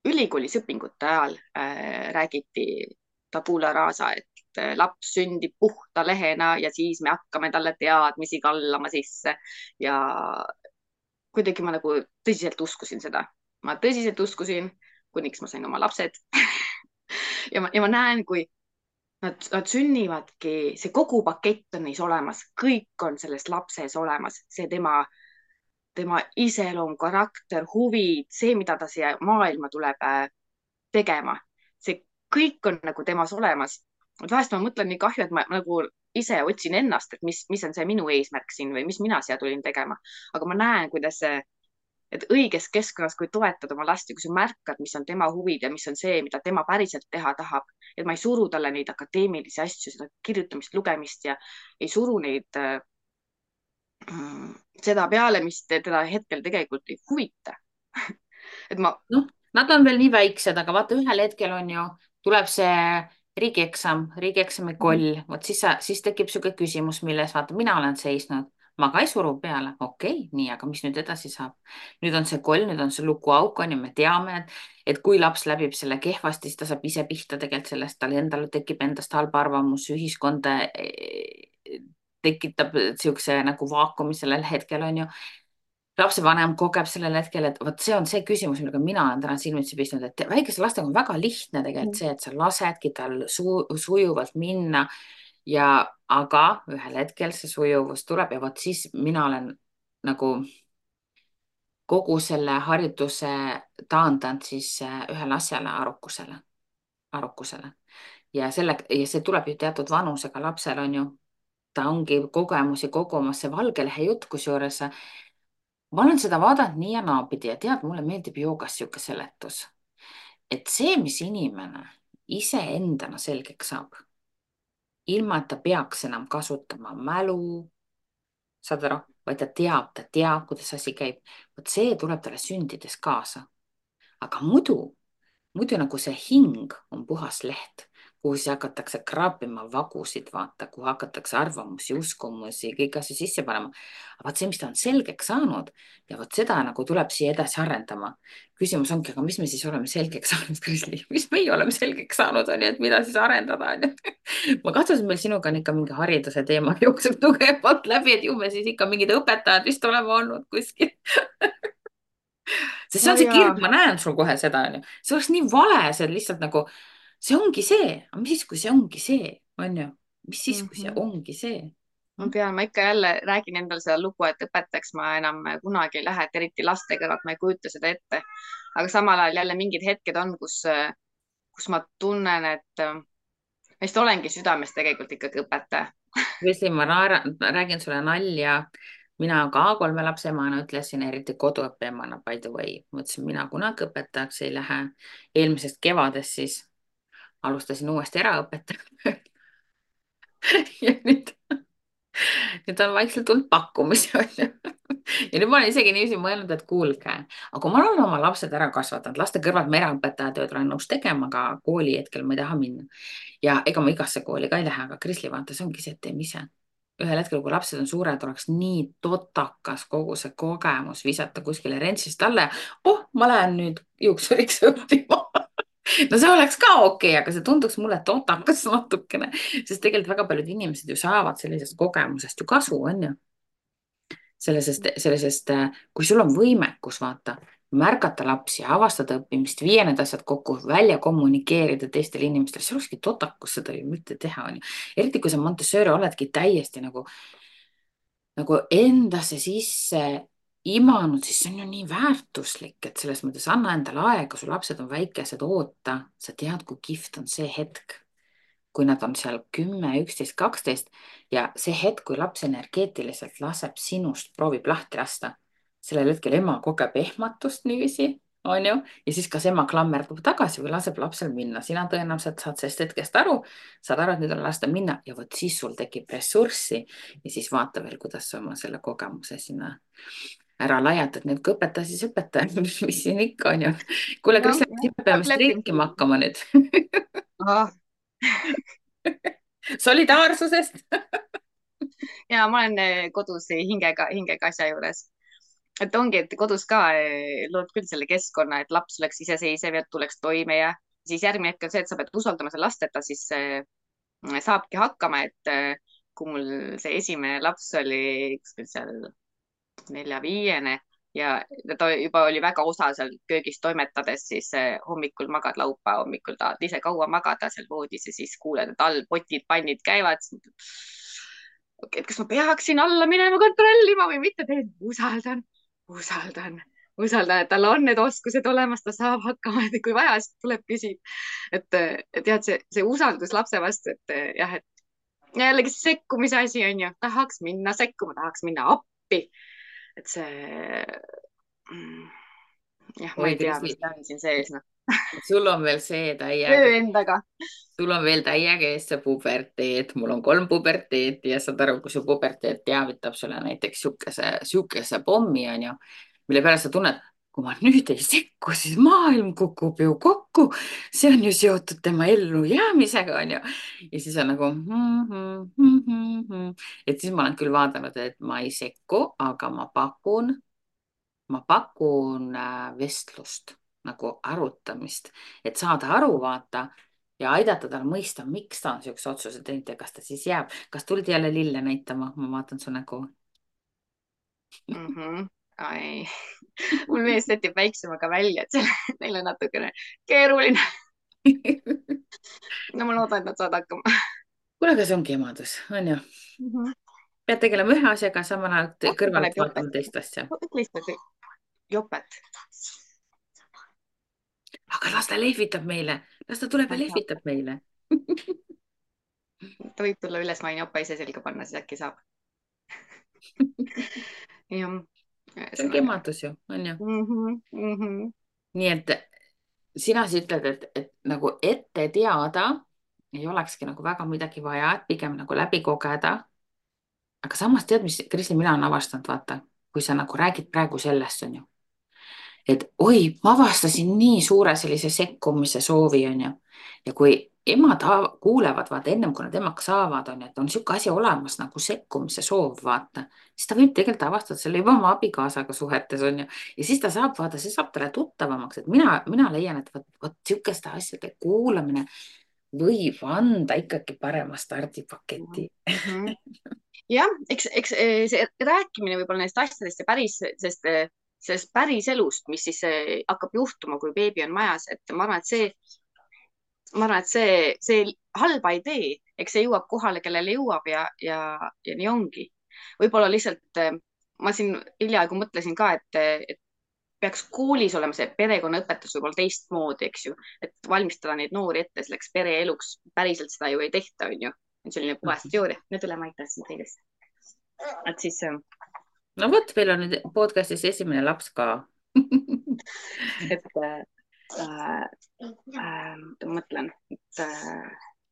ülikoolis õpingute ajal räägiti tabula rasa, et laps sündib puhta lehena ja siis me hakkame talle teadmisi kallama sisse ja kuidagi ma nagu tõsiselt uskusin seda. ma tõsiselt uskusin, kuniks ma sain oma lapsed ja ma näen, kui nad sünnivadki, see kogu pakett on neis olemas, kõik on selles lapses olemas, see tema iseloom, karakter, huvid, see, mida ta siia maailma tuleb tegema, see kõik on nagu temas olemas. vahest ma mõtlen nii kahju, et ma nagu ise otsin ennast, et mis on see minu eesmärk siin või mis mina siia tulin tegema, aga ma näen, kuidas see, et õiges keskkonnas, kui toetad oma last ja kui sa märkad, mis on tema huvid ja mis on see, mida tema päriselt teha tahab, et ma ei suru talle neid akadeemilisi asju, seda kirjutamist, lugemist ja ei suru neid seda peale, mis teda hetkel tegelikult ei huvita. et ma. noh, nad on veel nii väiksed, aga vaata, ühel hetkel on ju, tuleb see riigieksami koll, vot siis tekib niisugune küsimus, milles vaata, mina olen seisnud, ma ka ei suru peale, okei, nii, aga mis nüüd edasi saab? nüüd on see koll, nüüd on see lukuauk on ju, me teame, et kui laps läbib selle kehvasti, siis ta saab ise pihta tegelikult sellest, tal endal tekib endast halb arvamus, ühiskond tekitab niisuguse nagu vaakumi sellel hetkel on ju lapsevanem kogeb sellel hetkel, et vot see on see küsimus, millega mina olen täna silmitsi pistnud, et väikese lastega on väga lihtne tegelikult see, et sa lasedki tal sujuvalt minna ja, aga ühel hetkel see sujuvus tuleb ja vot siis mina olen nagu kogu selle hariduse taandanud siis ühele asjale, arukusele ja see tuleb ju teatud vanusega lapsel on ju, ta ongi kogemusi kogumas, see valge lehe jutt, kusjuures ma olen seda vaadanud nii ja naapidi ja tead, mulle meeldib joogas sihuke seletus, et see, mis inimene iseendana selgeks saab, ilma et ta peaks enam kasutama mälu, saad aru, vaid ta teab, kuidas asi käib. vot see tuleb talle sündides kaasa. Aga muidu nagu see hing on puhas leht, kuhu siis hakatakse kraapima vagusid, vaata, kuhu hakatakse arvamusi, uskumusi, kõiki asju sisse panema. aga vot see, mis ta on selgeks saanud ja vot seda nagu tuleb siia edasi arendama. küsimus ongi, aga mis me siis oleme selgeks saanud, Krisli, mis meie oleme selgeks saanud, on ju, et mida siis arendada, on ju. ma kahtlusin, et meil sinuga on ikka mingi hariduse teema jookseb tugevalt läbi, et ju me siis ikka mingid õpetajad vist oleme olnud kuskil. Sest see ja, on see ja. kirg, ma näen sul kohe seda, onju. see oleks nii vale, see lihtsalt nagu, see ongi see, aga mis siis, kui see ongi see, onju, mis siis, kui see Mhm. ongi see ma ikka jälle räägin endale seda lugu, et õpetajaks ma enam kunagi ei lähe, et eriti laste kõrvalt ma ei kujuta seda ette. aga samal ajal jälle mingid hetked on, kus ma tunnen, et ma vist olengi südames tegelikult ikkagi õpetaja. Vesli, räägin sulle nalja. mina ka 3 lapse emana ütlesin, eriti koduõppe emana, by the way, mõtlesin, mina kunagi õpetajaks ei lähe. eelmisest kevadest siis alustasin uuesti eraõpetajat ja nüüd on vaikselt tulnud pakkumisi, onju. ja nüüd ma olen isegi niiviisi mõelnud, et kuulge, aga kui ma olen oma lapsed ära kasvatanud, laste kõrvalt ma eraõpetaja tööd olen nõus tegema, aga kooli hetkel ma ei taha minna. ja ega ma igasse kooli ka ei lähe, aga Krisli, vaata, see ongi see, et teeme ise. ühel hetkel, kui lapsed on suured, oleks nii totakas kogu see kogemus visata kuskile rentsist alla ja ma lähen nüüd juuksuriks õppima. no see oleks ka okei, aga see tunduks mulle totakas natukene, sest tegelikult väga paljud inimesed ju saavad sellisest kogemusest ju kasu, on ju. sellisest, kui sul on võimekus, vaata, märgata lapsi, avastada õppimist, viia need asjad kokku, välja kommunikeerida teistele inimestele, see olekski totakus seda ju mitte teha, on ju. eriti kui sa Montessori oledki täiesti nagu endasse sisse imanud, siis see on ju nii väärtuslik, et selles mõttes anna endale aega, su lapsed on väikesed, oota, sa tead, kui kihvt on see hetk, kui nad on seal 10, 11, 12 ja see hetk, kui laps energeetiliselt laseb sinust, proovib lahti lasta, sellel hetkel ema kogeb ehmatust niiviisi, on ju, ja siis kas ema klammerdub tagasi või laseb lapsel minna, sina tõenäoliselt saad sellest hetkest aru, saad aru, et nüüd on lasta minna ja vot siis sul tekib ressurssi ja siis vaata veel, kuidas sa oma selle kogemuse sinna ära laiatad, nii et kui õpetaja, siis õpetaja, mis siin ikka on ju. kuule, jah, Kristel, jah, me peame lepin. streikima hakkama nüüd. Ah, solidaarsusest. ja ma olen kodus hingega asja juures. et ongi, et kodus ka lood küll selle keskkonna, et laps oleks iseseisev ja tuleks toime ja siis järgmine hetk on see, et sa pead usaldama seda last, et ta siis saabki hakkama, et kui mul see esimene laps oli kuskil seal 4-5 ja ta juba oli väga osa seal köögis toimetades, siis hommikul magad, laupäeva hommikul tahad ise kaua magada seal voodis ja siis kuuled, et all potid-pannid käivad. et kas ma peaksin alla minema kontrollima või mitte, usaldan, usaldan, usaldan, et tal on need oskused olemas, ta saab hakkama, et kui vaja, siis tuleb küsib. et jah, see usaldus lapse vastu, et jah, et jällegi sekkumise asi on ju, tahaks minna sekkuma, tahaks minna appi. et see jah, ma oi, ei tea, Kristi, mis ta on siin sees, noh. sul on veel see töö täiega, endaga. sul on veel täiega ees see puberteet, mul on 3 puberteeti ja saad aru, kui su puberteet teavitab sulle näiteks sihukese pommi, onju, mille peale sa tunned, kui ma nüüd ei sekku, siis maailm kukub ju kokku. see on ju seotud tema ellujäämisega, onju. ja siis on nagu et siis ma olen küll vaadanud, et ma ei sekku, aga ma pakun vestlust nagu arutamist, et saada aru, vaata ja aidata tal mõista, miks ta on siukse otsuse teinud ja kas ta siis jääb, kas tuldi jälle lille näitama, ma vaatan su nägu. Ai, mul mees sätib väiksemaga välja, et neil on natukene keeruline. no ma loodan, et nad saavad hakkama. kuule, aga see ongi emadus, on ju, Mhm. pead tegelema ühe asjaga, samal ajal äkki kõrvalt paneb jopet, vaatama teist asja, lihtsalt jopet. aga las ta lehvitab meile, las ta tuleb ja lehvitab meile. ta võib tulla üles, ma võin jopa ise selga panna, siis äkki saab. jah, see ongi ühesõnaga. emadus ju, on ju, Mhm, mhm. nii et sina siis ütled, et nagu ette teada ei olekski nagu väga midagi vaja, et pigem nagu läbi kogeda. aga samas tead, mis, Kristin, mina olen avastanud, vaata, kui sa nagu räägid praegu sellest, on ju, et oi, ma avastasin nii suure sellise sekkumise soovi, on ju. ja kui emad kuulevad, vaata, ennem kui nad emaks saavad, on ju, et on niisugune asi olemas nagu sekkumise soov, vaata, siis ta võib tegelikult avastada selle juba oma abikaasaga suhetes, on ju. ja siis ta saab, vaata, see saab talle tuttavamaks, et mina leian, et vot niisuguste asjade kuulamine võib anda ikkagi parema stardipaketi. jah, eks see rääkimine võib-olla nendest asjadest ja sellest päris elust, mis siis hakkab juhtuma, kui beebi on majas, et ma arvan, et see halba ei tee, eks see jõuab kohale, kellele jõuab ja nii ongi. võib-olla lihtsalt ma siin hiljaaegu mõtlesin ka, et peaks koolis olema see perekonnaõpetus võib-olla teistmoodi, eks ju, et valmistada neid noori ette selleks pereeluks. päriselt seda ju ei tehta, on ju. selline puhas teooria. nüüd üle ma aitan sind teilest. et siis no vot, meil on nüüd podcastis esimene laps ka. et ma mõtlen, et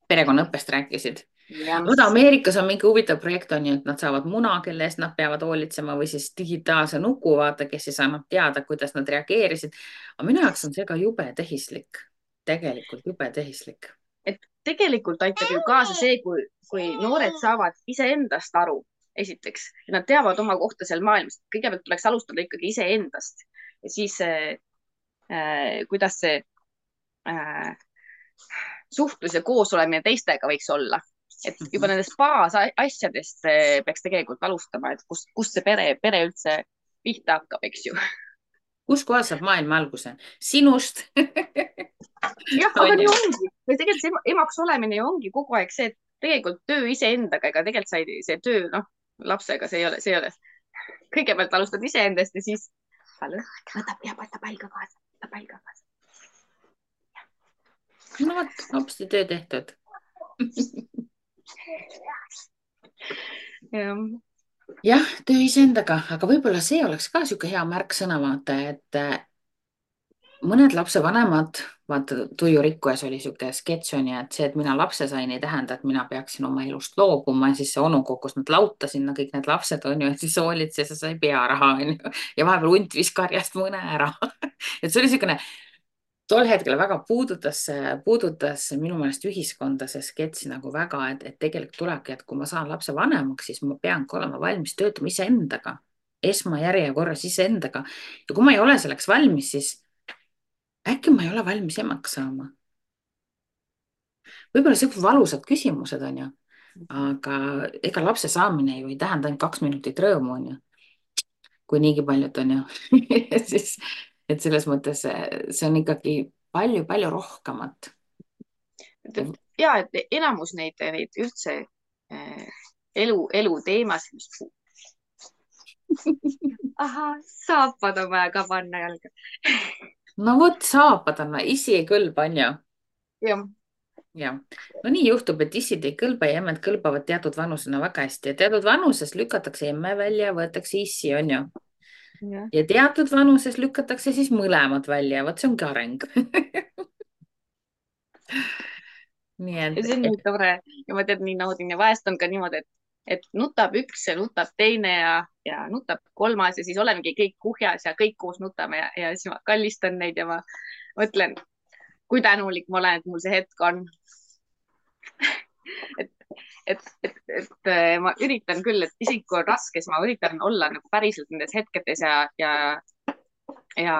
perekonnaõppest rääkisid. jah, vaata, Ameerikas on mingi huvitav projekt, on ju, et nad saavad muna, kelle eest nad peavad hoolitsema või siis digitaalse nuku, vaata, kes siis annab teada, kuidas nad reageerisid. aga minu jaoks on see ka jube tehislik, tegelikult jube tehislik. et tegelikult aitab ju kaasa see, kui noored saavad iseendast aru, esiteks, et nad teavad oma kohta seal maailmas. kõigepealt tuleks alustada ikkagi iseendast ja siis kuidas see suhtlus ja koosolemine teistega võiks olla. et juba nendest baasasjadest peaks tegelikult alustama, et kust see pere üldse pihta hakkab, eks ju. kus kohas saab maailm alguse? Sinust. jah, aga nii ongi. või tegelikult see emaks olemine ju ongi kogu aeg see, et tegelikult töö iseendaga, ega tegelikult see töö, noh, lapsega see ei ole. kõigepealt alustad iseendast ja siis võta pall ka kaasa. no vot, hopsti töö tehtud. jah, töö iseendaga, aga võib-olla see oleks ka niisugune hea märksõna, vaata, et mõned lapsevanemad, vaata, Tuju Rikkujas oli niisugune sketš on ju, et see, et mina lapse sain, ei tähenda, et mina peaksin oma elust loobuma ja siis see onu kogus nad lauta sinna, kõik need lapsed on ju, et siis hoolitses ja sai pearaha on ju ja vahepeal hunt viis karjast mõne ära et see oli niisugune tol hetkel väga puudutas minu meelest ühiskonda see sketš nagu väga, et tegelikult tulebki, et kui ma saan lapse vanemaks, siis ma peangi olema valmis töötama iseendaga, esmajärjekorras iseendaga ja kui ma ei ole selleks valmis, siis äkki ma ei ole valmis emaks saama. võib-olla siuksed valusad küsimused on ju, aga ega lapse saamine ju ei tähenda ainult 2 minutit rõõmu on ju, kui niigi paljud on ju siis, et selles mõttes see on ikkagi palju-palju rohkemat. ja, et enamus neid üldse elu teemasid, ahah, saapad on vaja ka panna jalga. no vot, saapad on, isi ei kõlba, on ju? jah. jah, no nii juhtub, et issid ei kõlba ja emmed kõlbavad teatud vanusena väga hästi ja teatud vanuses lükatakse emme välja ja võetakse issi, on ju? ja teatud vanuses lükatakse siis mõlemad välja, vot see ongi areng nii et. see on nii tore ja ma tean, nii naudin ja vahest on ka niimoodi, et nutab üks ja nutab teine ja nutab kolmas ja siis olemegi kõik kuhjas ja kõik koos nutame ja siis ma kallistan neid ja ma mõtlen, kui tänulik ma olen, et mul see hetk on et ma üritan küll, et isegi kui on raske, siis ma üritan olla nagu päriselt nendes hetkedes ja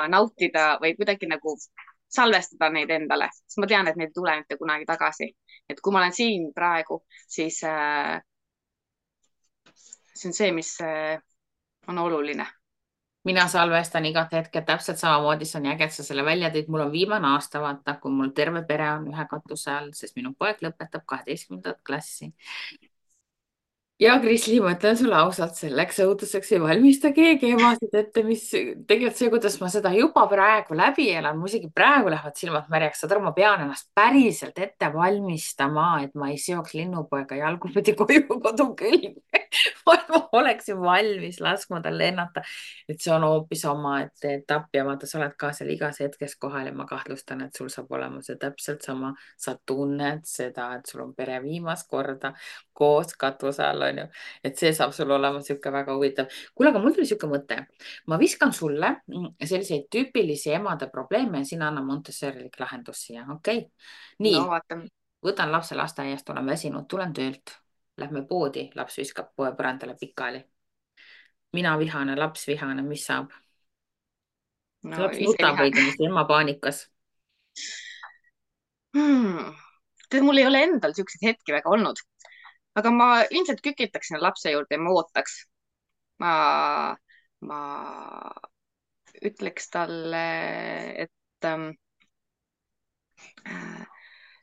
nautida või kuidagi nagu salvestada neid endale, sest ma tean, et neid ei tule mitte kunagi tagasi. et kui ma olen siin praegu, siis see on see, mis on oluline. mina salvestan igat hetket täpselt samamoodi, see on äge, et sa selle välja tõid. mul on viimane aasta, vaata, kui mul terve pere on ühe katuse all, sest minu poeg lõpetab 12. klassi. ja Krisli, ma ütlen sulle ausalt, selleks õuduseks ei valmista keegi emasid ette, mis tegelikult see, kuidas ma seda juba praegu läbi elan, mul isegi praegu lähevad silmad märjaks, saad aru, ma pean ennast päriselt ette valmistama, et ma ei seoks linnupoega jalgupidi koju kodu külge. ma oleksin valmis laskma tal lennata, et see on hoopis omaette etapp ja vaata, sa oled ka seal igas hetkes kohal ja ma kahtlustan, et sul saab olema see täpselt sama, sa tunned seda, et sul on pere viimast korda koos katuse all, onju. Et see saab sul olema sihuke väga huvitav. kuule, aga mul tuli sihuke mõte. ma viskan sulle selliseid tüüpilisi emade probleeme ja sina anna Montessorilik lahendus siia, okei okay?? nii, No vaatame. võtan lapse lasteaiast, olen väsinud, tulen töölt. Lähme poodi, laps viskab poe põrandale pikali. mina vihane, laps vihane, mis saab? No Laps ise nutab vihan. õigemini, ema paanikas. Tead, mul ei ole endal siukseid hetki väga olnud, aga ma ilmselt kükitaks sinna lapse juurde ja ma ootaks. ma, ma ütleks talle, et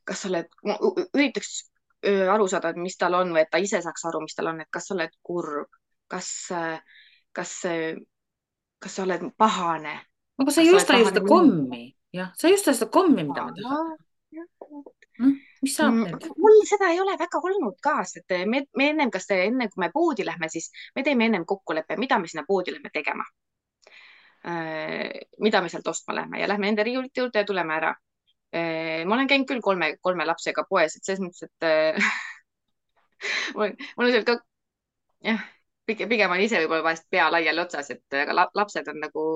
kas sa oled, ma üritaks aru saada, et mis tal on või et ta ise saaks aru, mis tal on, et kas sa oled kurb, kas, kas, kas sa oled pahane, aga sa kas ei sa oled osta ju pahane seda minu kommi, jah, sa ei osta seda kommi, mida ma tahan. Mis saab nüüd? mul seda ei ole väga olnud ka, sest me ennem, enne kui me poodi lähme, siis me teeme ennem kokkuleppe, mida me sinna poodi lähme tegema. Mida me sealt ostma lähme ja lähme enda riiulite juurde ja tuleme ära. Ma olen käinud küll kolme lapsega poes, et selles mõttes, et mul on seal ka, jah, pigem on ise võib-olla vahest pea laiali otsas, et aga lapsed on nagu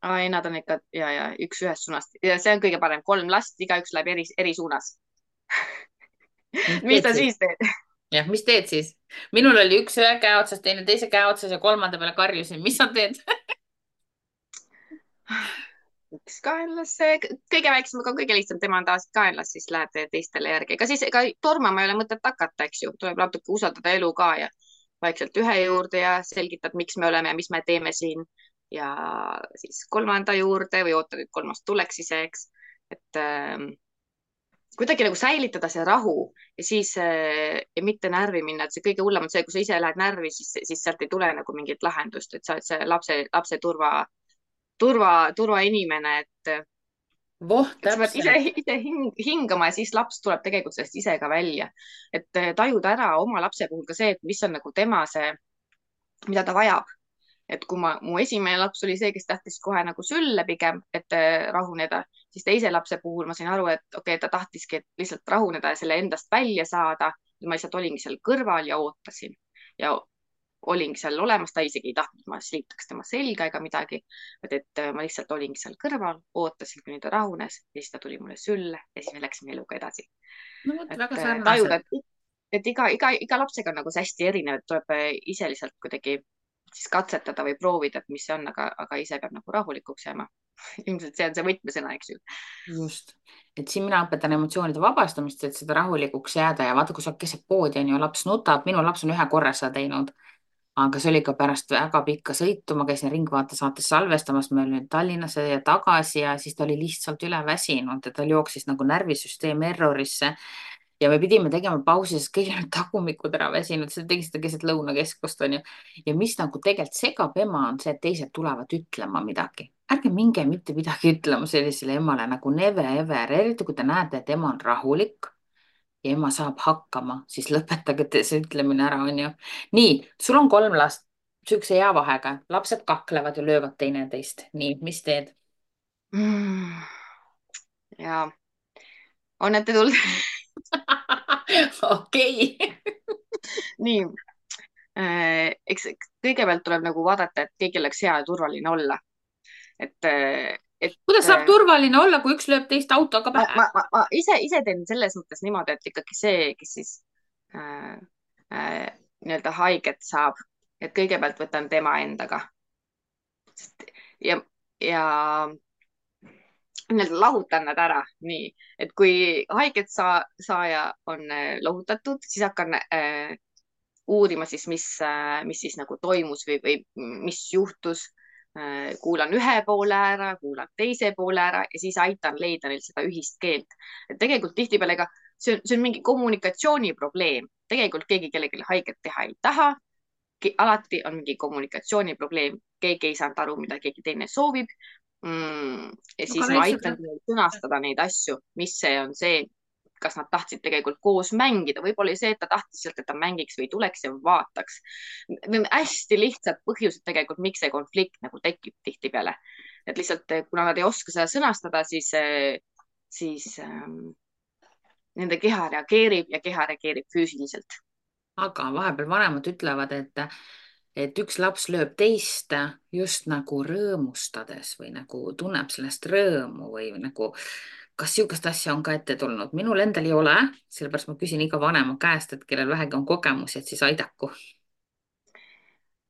ai, nad on ikka ja üks ühest suunast ja see on kõige parem, 3 last, igaüks läheb eri suunas. mis Mis teed ta siis? siis teeb? jah, mis teed siis? minul oli üks ühe käe otsas, teine teise käe otsas ja kolmanda peale karjusin, mis sa teed? üks kaenlas, kõige väiksem, aga kõige lihtsam, tema on tavaliselt kaenlas, siis läheb teistele järgi. ega siis, ega tormama ei ole mõtet hakata, eks ju, tuleb natuke usaldada elu ka ja vaikselt ühe juurde ja selgitad, miks me oleme ja mis me teeme siin. Ja siis kolmanda juurde või ootad, et kolmas tuleks ise, eks. Et kuidagi nagu säilitada see rahu ja siis ja mitte närvi minna, et see kõige hullem on see, kui sa ise lähed närvi, siis sealt ei tule nagu mingit lahendust, et sa oled see lapse turvainimene, voh, et sa pead täpselt. ise hingama ja siis laps tuleb tegelikult sellest ise ka välja. Et tajuda ära oma lapse puhul ka see, et mis on nagu tema see, mida ta vajab. Et kui mu esimene laps oli see, kes tahtis kohe nagu sülle pigem, et rahuneda, siis teise lapse puhul ma sain aru, et okei, ta tahtiski lihtsalt rahuneda ja selle endast välja saada. ma lihtsalt olingi seal kõrval ja ootasin ja olingi seal olemas, ta isegi ei tahtnud, ma sliitaks tema selga ega midagi, et ma lihtsalt olingi seal kõrval, ootasin, kuni ta rahunes ja siis ta tuli mulle sülle ja siis me läksime eluga edasi. no vot, väga Et tajuda, sarnased. et iga lapsega on nagu see hästi erinev, et tuleb ise lihtsalt kuidagi siis katsetada või proovida, et mis see on, aga ise peab nagu rahulikuks jääma. ilmselt see on see võtmesõna, eks ju. just, et siin mina õpetan emotsioonide vabastamist, et seda rahulikuks jääda ja vaata, kui sa keset poodi on ju, laps nutab, minu laps on ühe korra seda teinud, aga see oli ka pärast väga pikka sõitu, ma käisin Ringvaate saates salvestamas, me olime Tallinnasse ja tagasi ja siis ta oli lihtsalt üle väsinud ja tal jooksis nagu närvisüsteem errorisse ja me pidime tegema pausi, sest kõigil olid tagumikud ära väsinud, sa tegid seda keset lõunakeskust onju. ja mis nagu tegelikult segab ema, on see, et teised tulevad ütlema midagi. ärge minge mitte midagi ütlema sellisele emale nagu never ever, eriti kui te näete, et ema on rahulik ja ema saab hakkama, siis lõpetage see ütlemine ära, onju. nii, sul on 3 last, siukse hea vahega, lapsed kaklevad ja löövad teineteist. nii, mis teed? ja on ette tulnud. okei. nii, eks kõigepealt tuleb nagu vaadata, et kõigil oleks hea ja turvaline olla. Et kuidas saab turvaline olla, kui üks lööb teist autoga pähe? ma ise teen selles mõttes niimoodi, et ikkagi see, kes siis äh, nii-öelda haiget saab, et kõigepealt võtan tema endaga. ja nii-öelda lahutan nad ära, nii, et kui haiget saaja on lohutatud, siis hakkan uurima siis, mis siis nagu toimus või mis juhtus. kuulan ühe poole ära, kuulan teise poole ära ja siis aitan leida neil seda ühist keelt. et tegelikult tihtipeale ka see on mingi kommunikatsiooniprobleem, tegelikult keegi kellelegi haiget teha ei taha. Alati on mingi kommunikatsiooniprobleem, keegi ei saanud aru, mida keegi teine soovib. Ja aga siis ma lihtsalt aitan sõnastada neid asju, mis see on see, kas nad tahtsid tegelikult koos mängida, võib-olla oli see, et ta tahtis sealt, et ta mängiks või tuleks ja vaataks. Hästi lihtsad põhjused tegelikult, miks see konflikt nagu tekib tihtipeale. Et lihtsalt, kuna nad ei oska seda sõnastada, siis nende keha reageerib ja keha reageerib füüsiliselt. aga vahepeal vanemad ütlevad, et üks laps lööb teist just nagu rõõmustades või nagu tunneb sellest rõõmu või nagu, kas niisugust asja on ka ette tulnud? Minul endal ei ole, sellepärast ma küsin iga vanema käest, et kellel vähegi on kogemusi, et siis aidaku.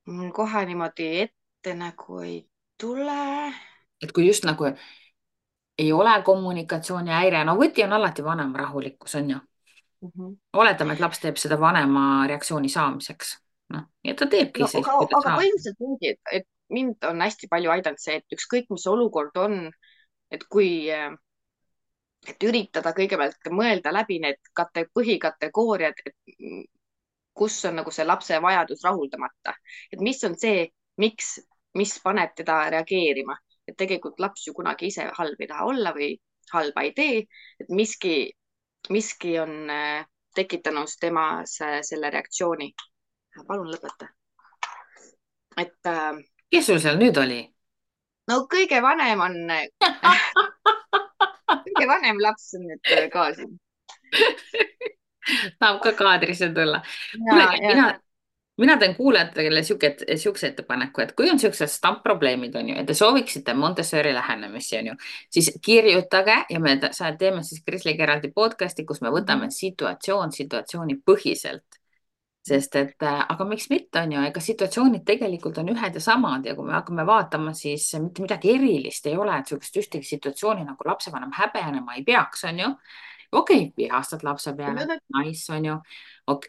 Mul kohe niimoodi ette nagu ei tule. Et kui just nagu ei ole kommunikatsioonihäire, no võti on alati vanema rahulikkus, on ju. Mhm. Oletame, et laps teeb seda vanema reaktsiooni saamiseks. Noh, ja ta teebki No, siis, kui ta aga saab. põhimõtteliselt ongi, et mind on hästi palju aidanud see, et ükskõik, mis olukord on, et kui, et üritada kõigepealt mõelda läbi need põhikategooriad, et kus on nagu see lapse vajadus rahuldamata, et mis on see, mis paneb teda reageerima, et tegelikult laps ju kunagi ise halb ei taha olla või halba ei tee, et miski on tekitanud temas selle reaktsiooni. Palun lõpeta. Et Kes sul seal nüüd oli? no kõige vanem on kõige vanem laps on nüüd ka siin. Tahab ka kaadrisse tulla. Ja, Kuulge, ja. mina teen kuulajatele siukse ettepaneku, et kui on siuksed stampprobleemid, on ju, et te sooviksite Montessori lähenemisi, on ju, siis kirjutage ja me teeme siis Krisliga eraldi podcast'i, kus me võtame situatsiooni põhiselt. Sest et, aga miks mitte, on ju, ega situatsioonid tegelikult on ühed ja samad ja kui me hakkame vaatama, siis mitte midagi erilist ei ole, et sihukest ühtegi situatsiooni nagu lapsevanem häbenema ei peaks, on ju. Okei, vihastad lapse peale, nice, on ju.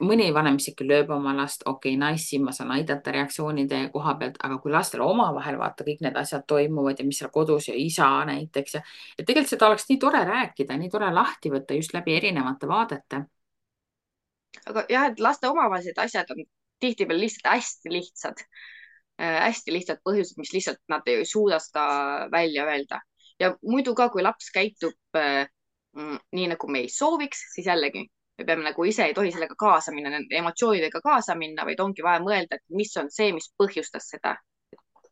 Mõni vanem isegi lööb oma last, okei, nice, siin ma saan aidata reaktsioonide koha pealt, aga kui lastel omavahel vaata kõik need asjad toimuvad ja mis seal kodus ja isa näiteks ja et tegelikult seda oleks nii tore rääkida, nii tore lahti võtta just läbi erinevate vaadete. Aga jah, et laste omavahelised asjad on tihtipeale lihtsalt hästi lihtsad põhjused, mis lihtsalt nad ei suuda seda välja öelda. Ja muidu ka, kui laps käitub nii nagu me ei sooviks, siis jällegi me peame nagu ise ei tohi sellega kaasa minna, nende emotsioonidega kaasa minna, vaid ongi vaja mõelda, et mis on see, mis põhjustas seda.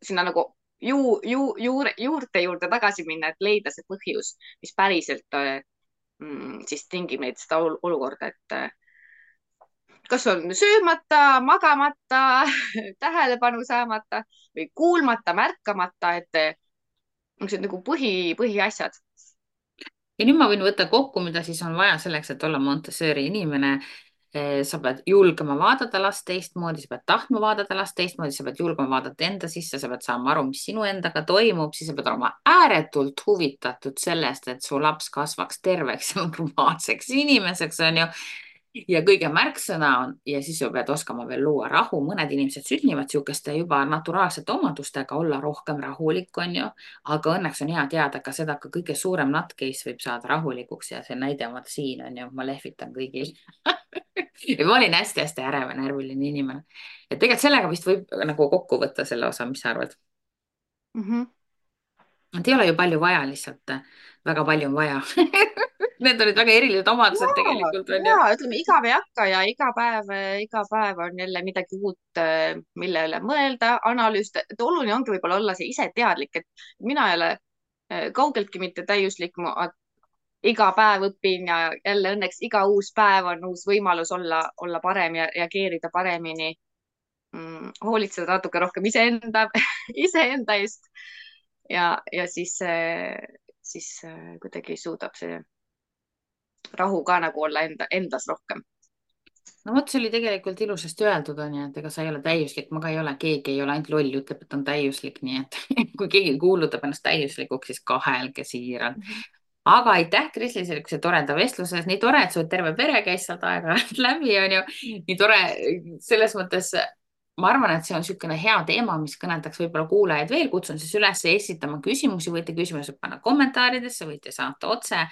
Sinna nagu juurte tagasi minna, et leida see põhjus, mis päriselt siis tingib neid seda olukorda, et kas on söömata, magamata, tähelepanu saamata või kuulmata, märkamata, et niisugused nagu põhiasjad. Ja nüüd ma võin võtta kokku, mida siis on vaja selleks, et olla Montessori inimene. Sa pead julgema vaadata last teistmoodi, sa pead tahtma vaadata last teistmoodi, sa pead julgema vaadata enda sisse, sa pead saama aru, mis sinu endaga toimub, siis sa pead olema ääretult huvitatud sellest, et su laps kasvaks terveks ja normaalseks inimeseks, on ju. Ja kõige märksõna on ja siis sa pead oskama veel luua rahu. Mõned inimesed sünnivad sihukeste juba naturaalsete omadustega olla rohkem rahulik, on ju. Aga õnneks on hea teada ka seda, ka kõige suurem nutcase võib saada rahulikuks ja see näide on siin, on ju, ma lehvitan kõigil. Ja ma olin hästi-hästi ärev ja närviline inimene. Et tegelikult sellega vist võib nagu kokku võtta selle osa, mis sa arvad? Et ei ole ju palju vaja, lihtsalt väga palju on vaja. Need olid väga erilised omadused tegelikult, on ju. Ütleme, igav ei hakka ja iga päev on jälle midagi uut, mille üle mõelda, analüüsida. Et oluline ongi võib-olla olla see ise teadlik, et mina ei ole kaugeltki mitte täiuslik. Ma iga päev õpin ja jälle õnneks iga uus päev on uus võimalus olla parem ja reageerida paremini. Hoolitseda natuke rohkem iseenda eest ja siis kuidagi suudab see rahu ka nagu olla endas rohkem. No vot, see oli tegelikult ilusasti öeldud, on ju, et ega sa ei ole täiuslik, ma ka ei ole, keegi ei ole, ainult loll ütleb, et on täiuslik, nii et kui keegi kuulutab ennast täiuslikuks, siis kahelge siiralt. Aga aitäh, Krisli, sellise toreda vestluse eest, nii tore, et sul terve pere käis sealt aeg-ajalt läbi, on ju, nii tore selles mõttes. Ma arvan, et see on niisugune hea teema, mis kõnetaks võib-olla kuulajaid veel, kutsun siis üles esitama küsimusi, võite küsimusi panna kommentaaridesse, võite saata otse.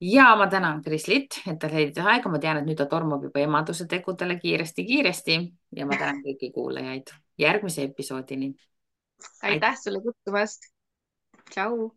ja ma tänan Krislit, et ta leidis aega, ma tean, et nüüd ta tormab juba emaduse tegudele kiiresti-kiiresti ja ma tänan kõiki kuulajaid järgmise episoodini. Aitäh. aitäh sulle kutsumast. Tšau.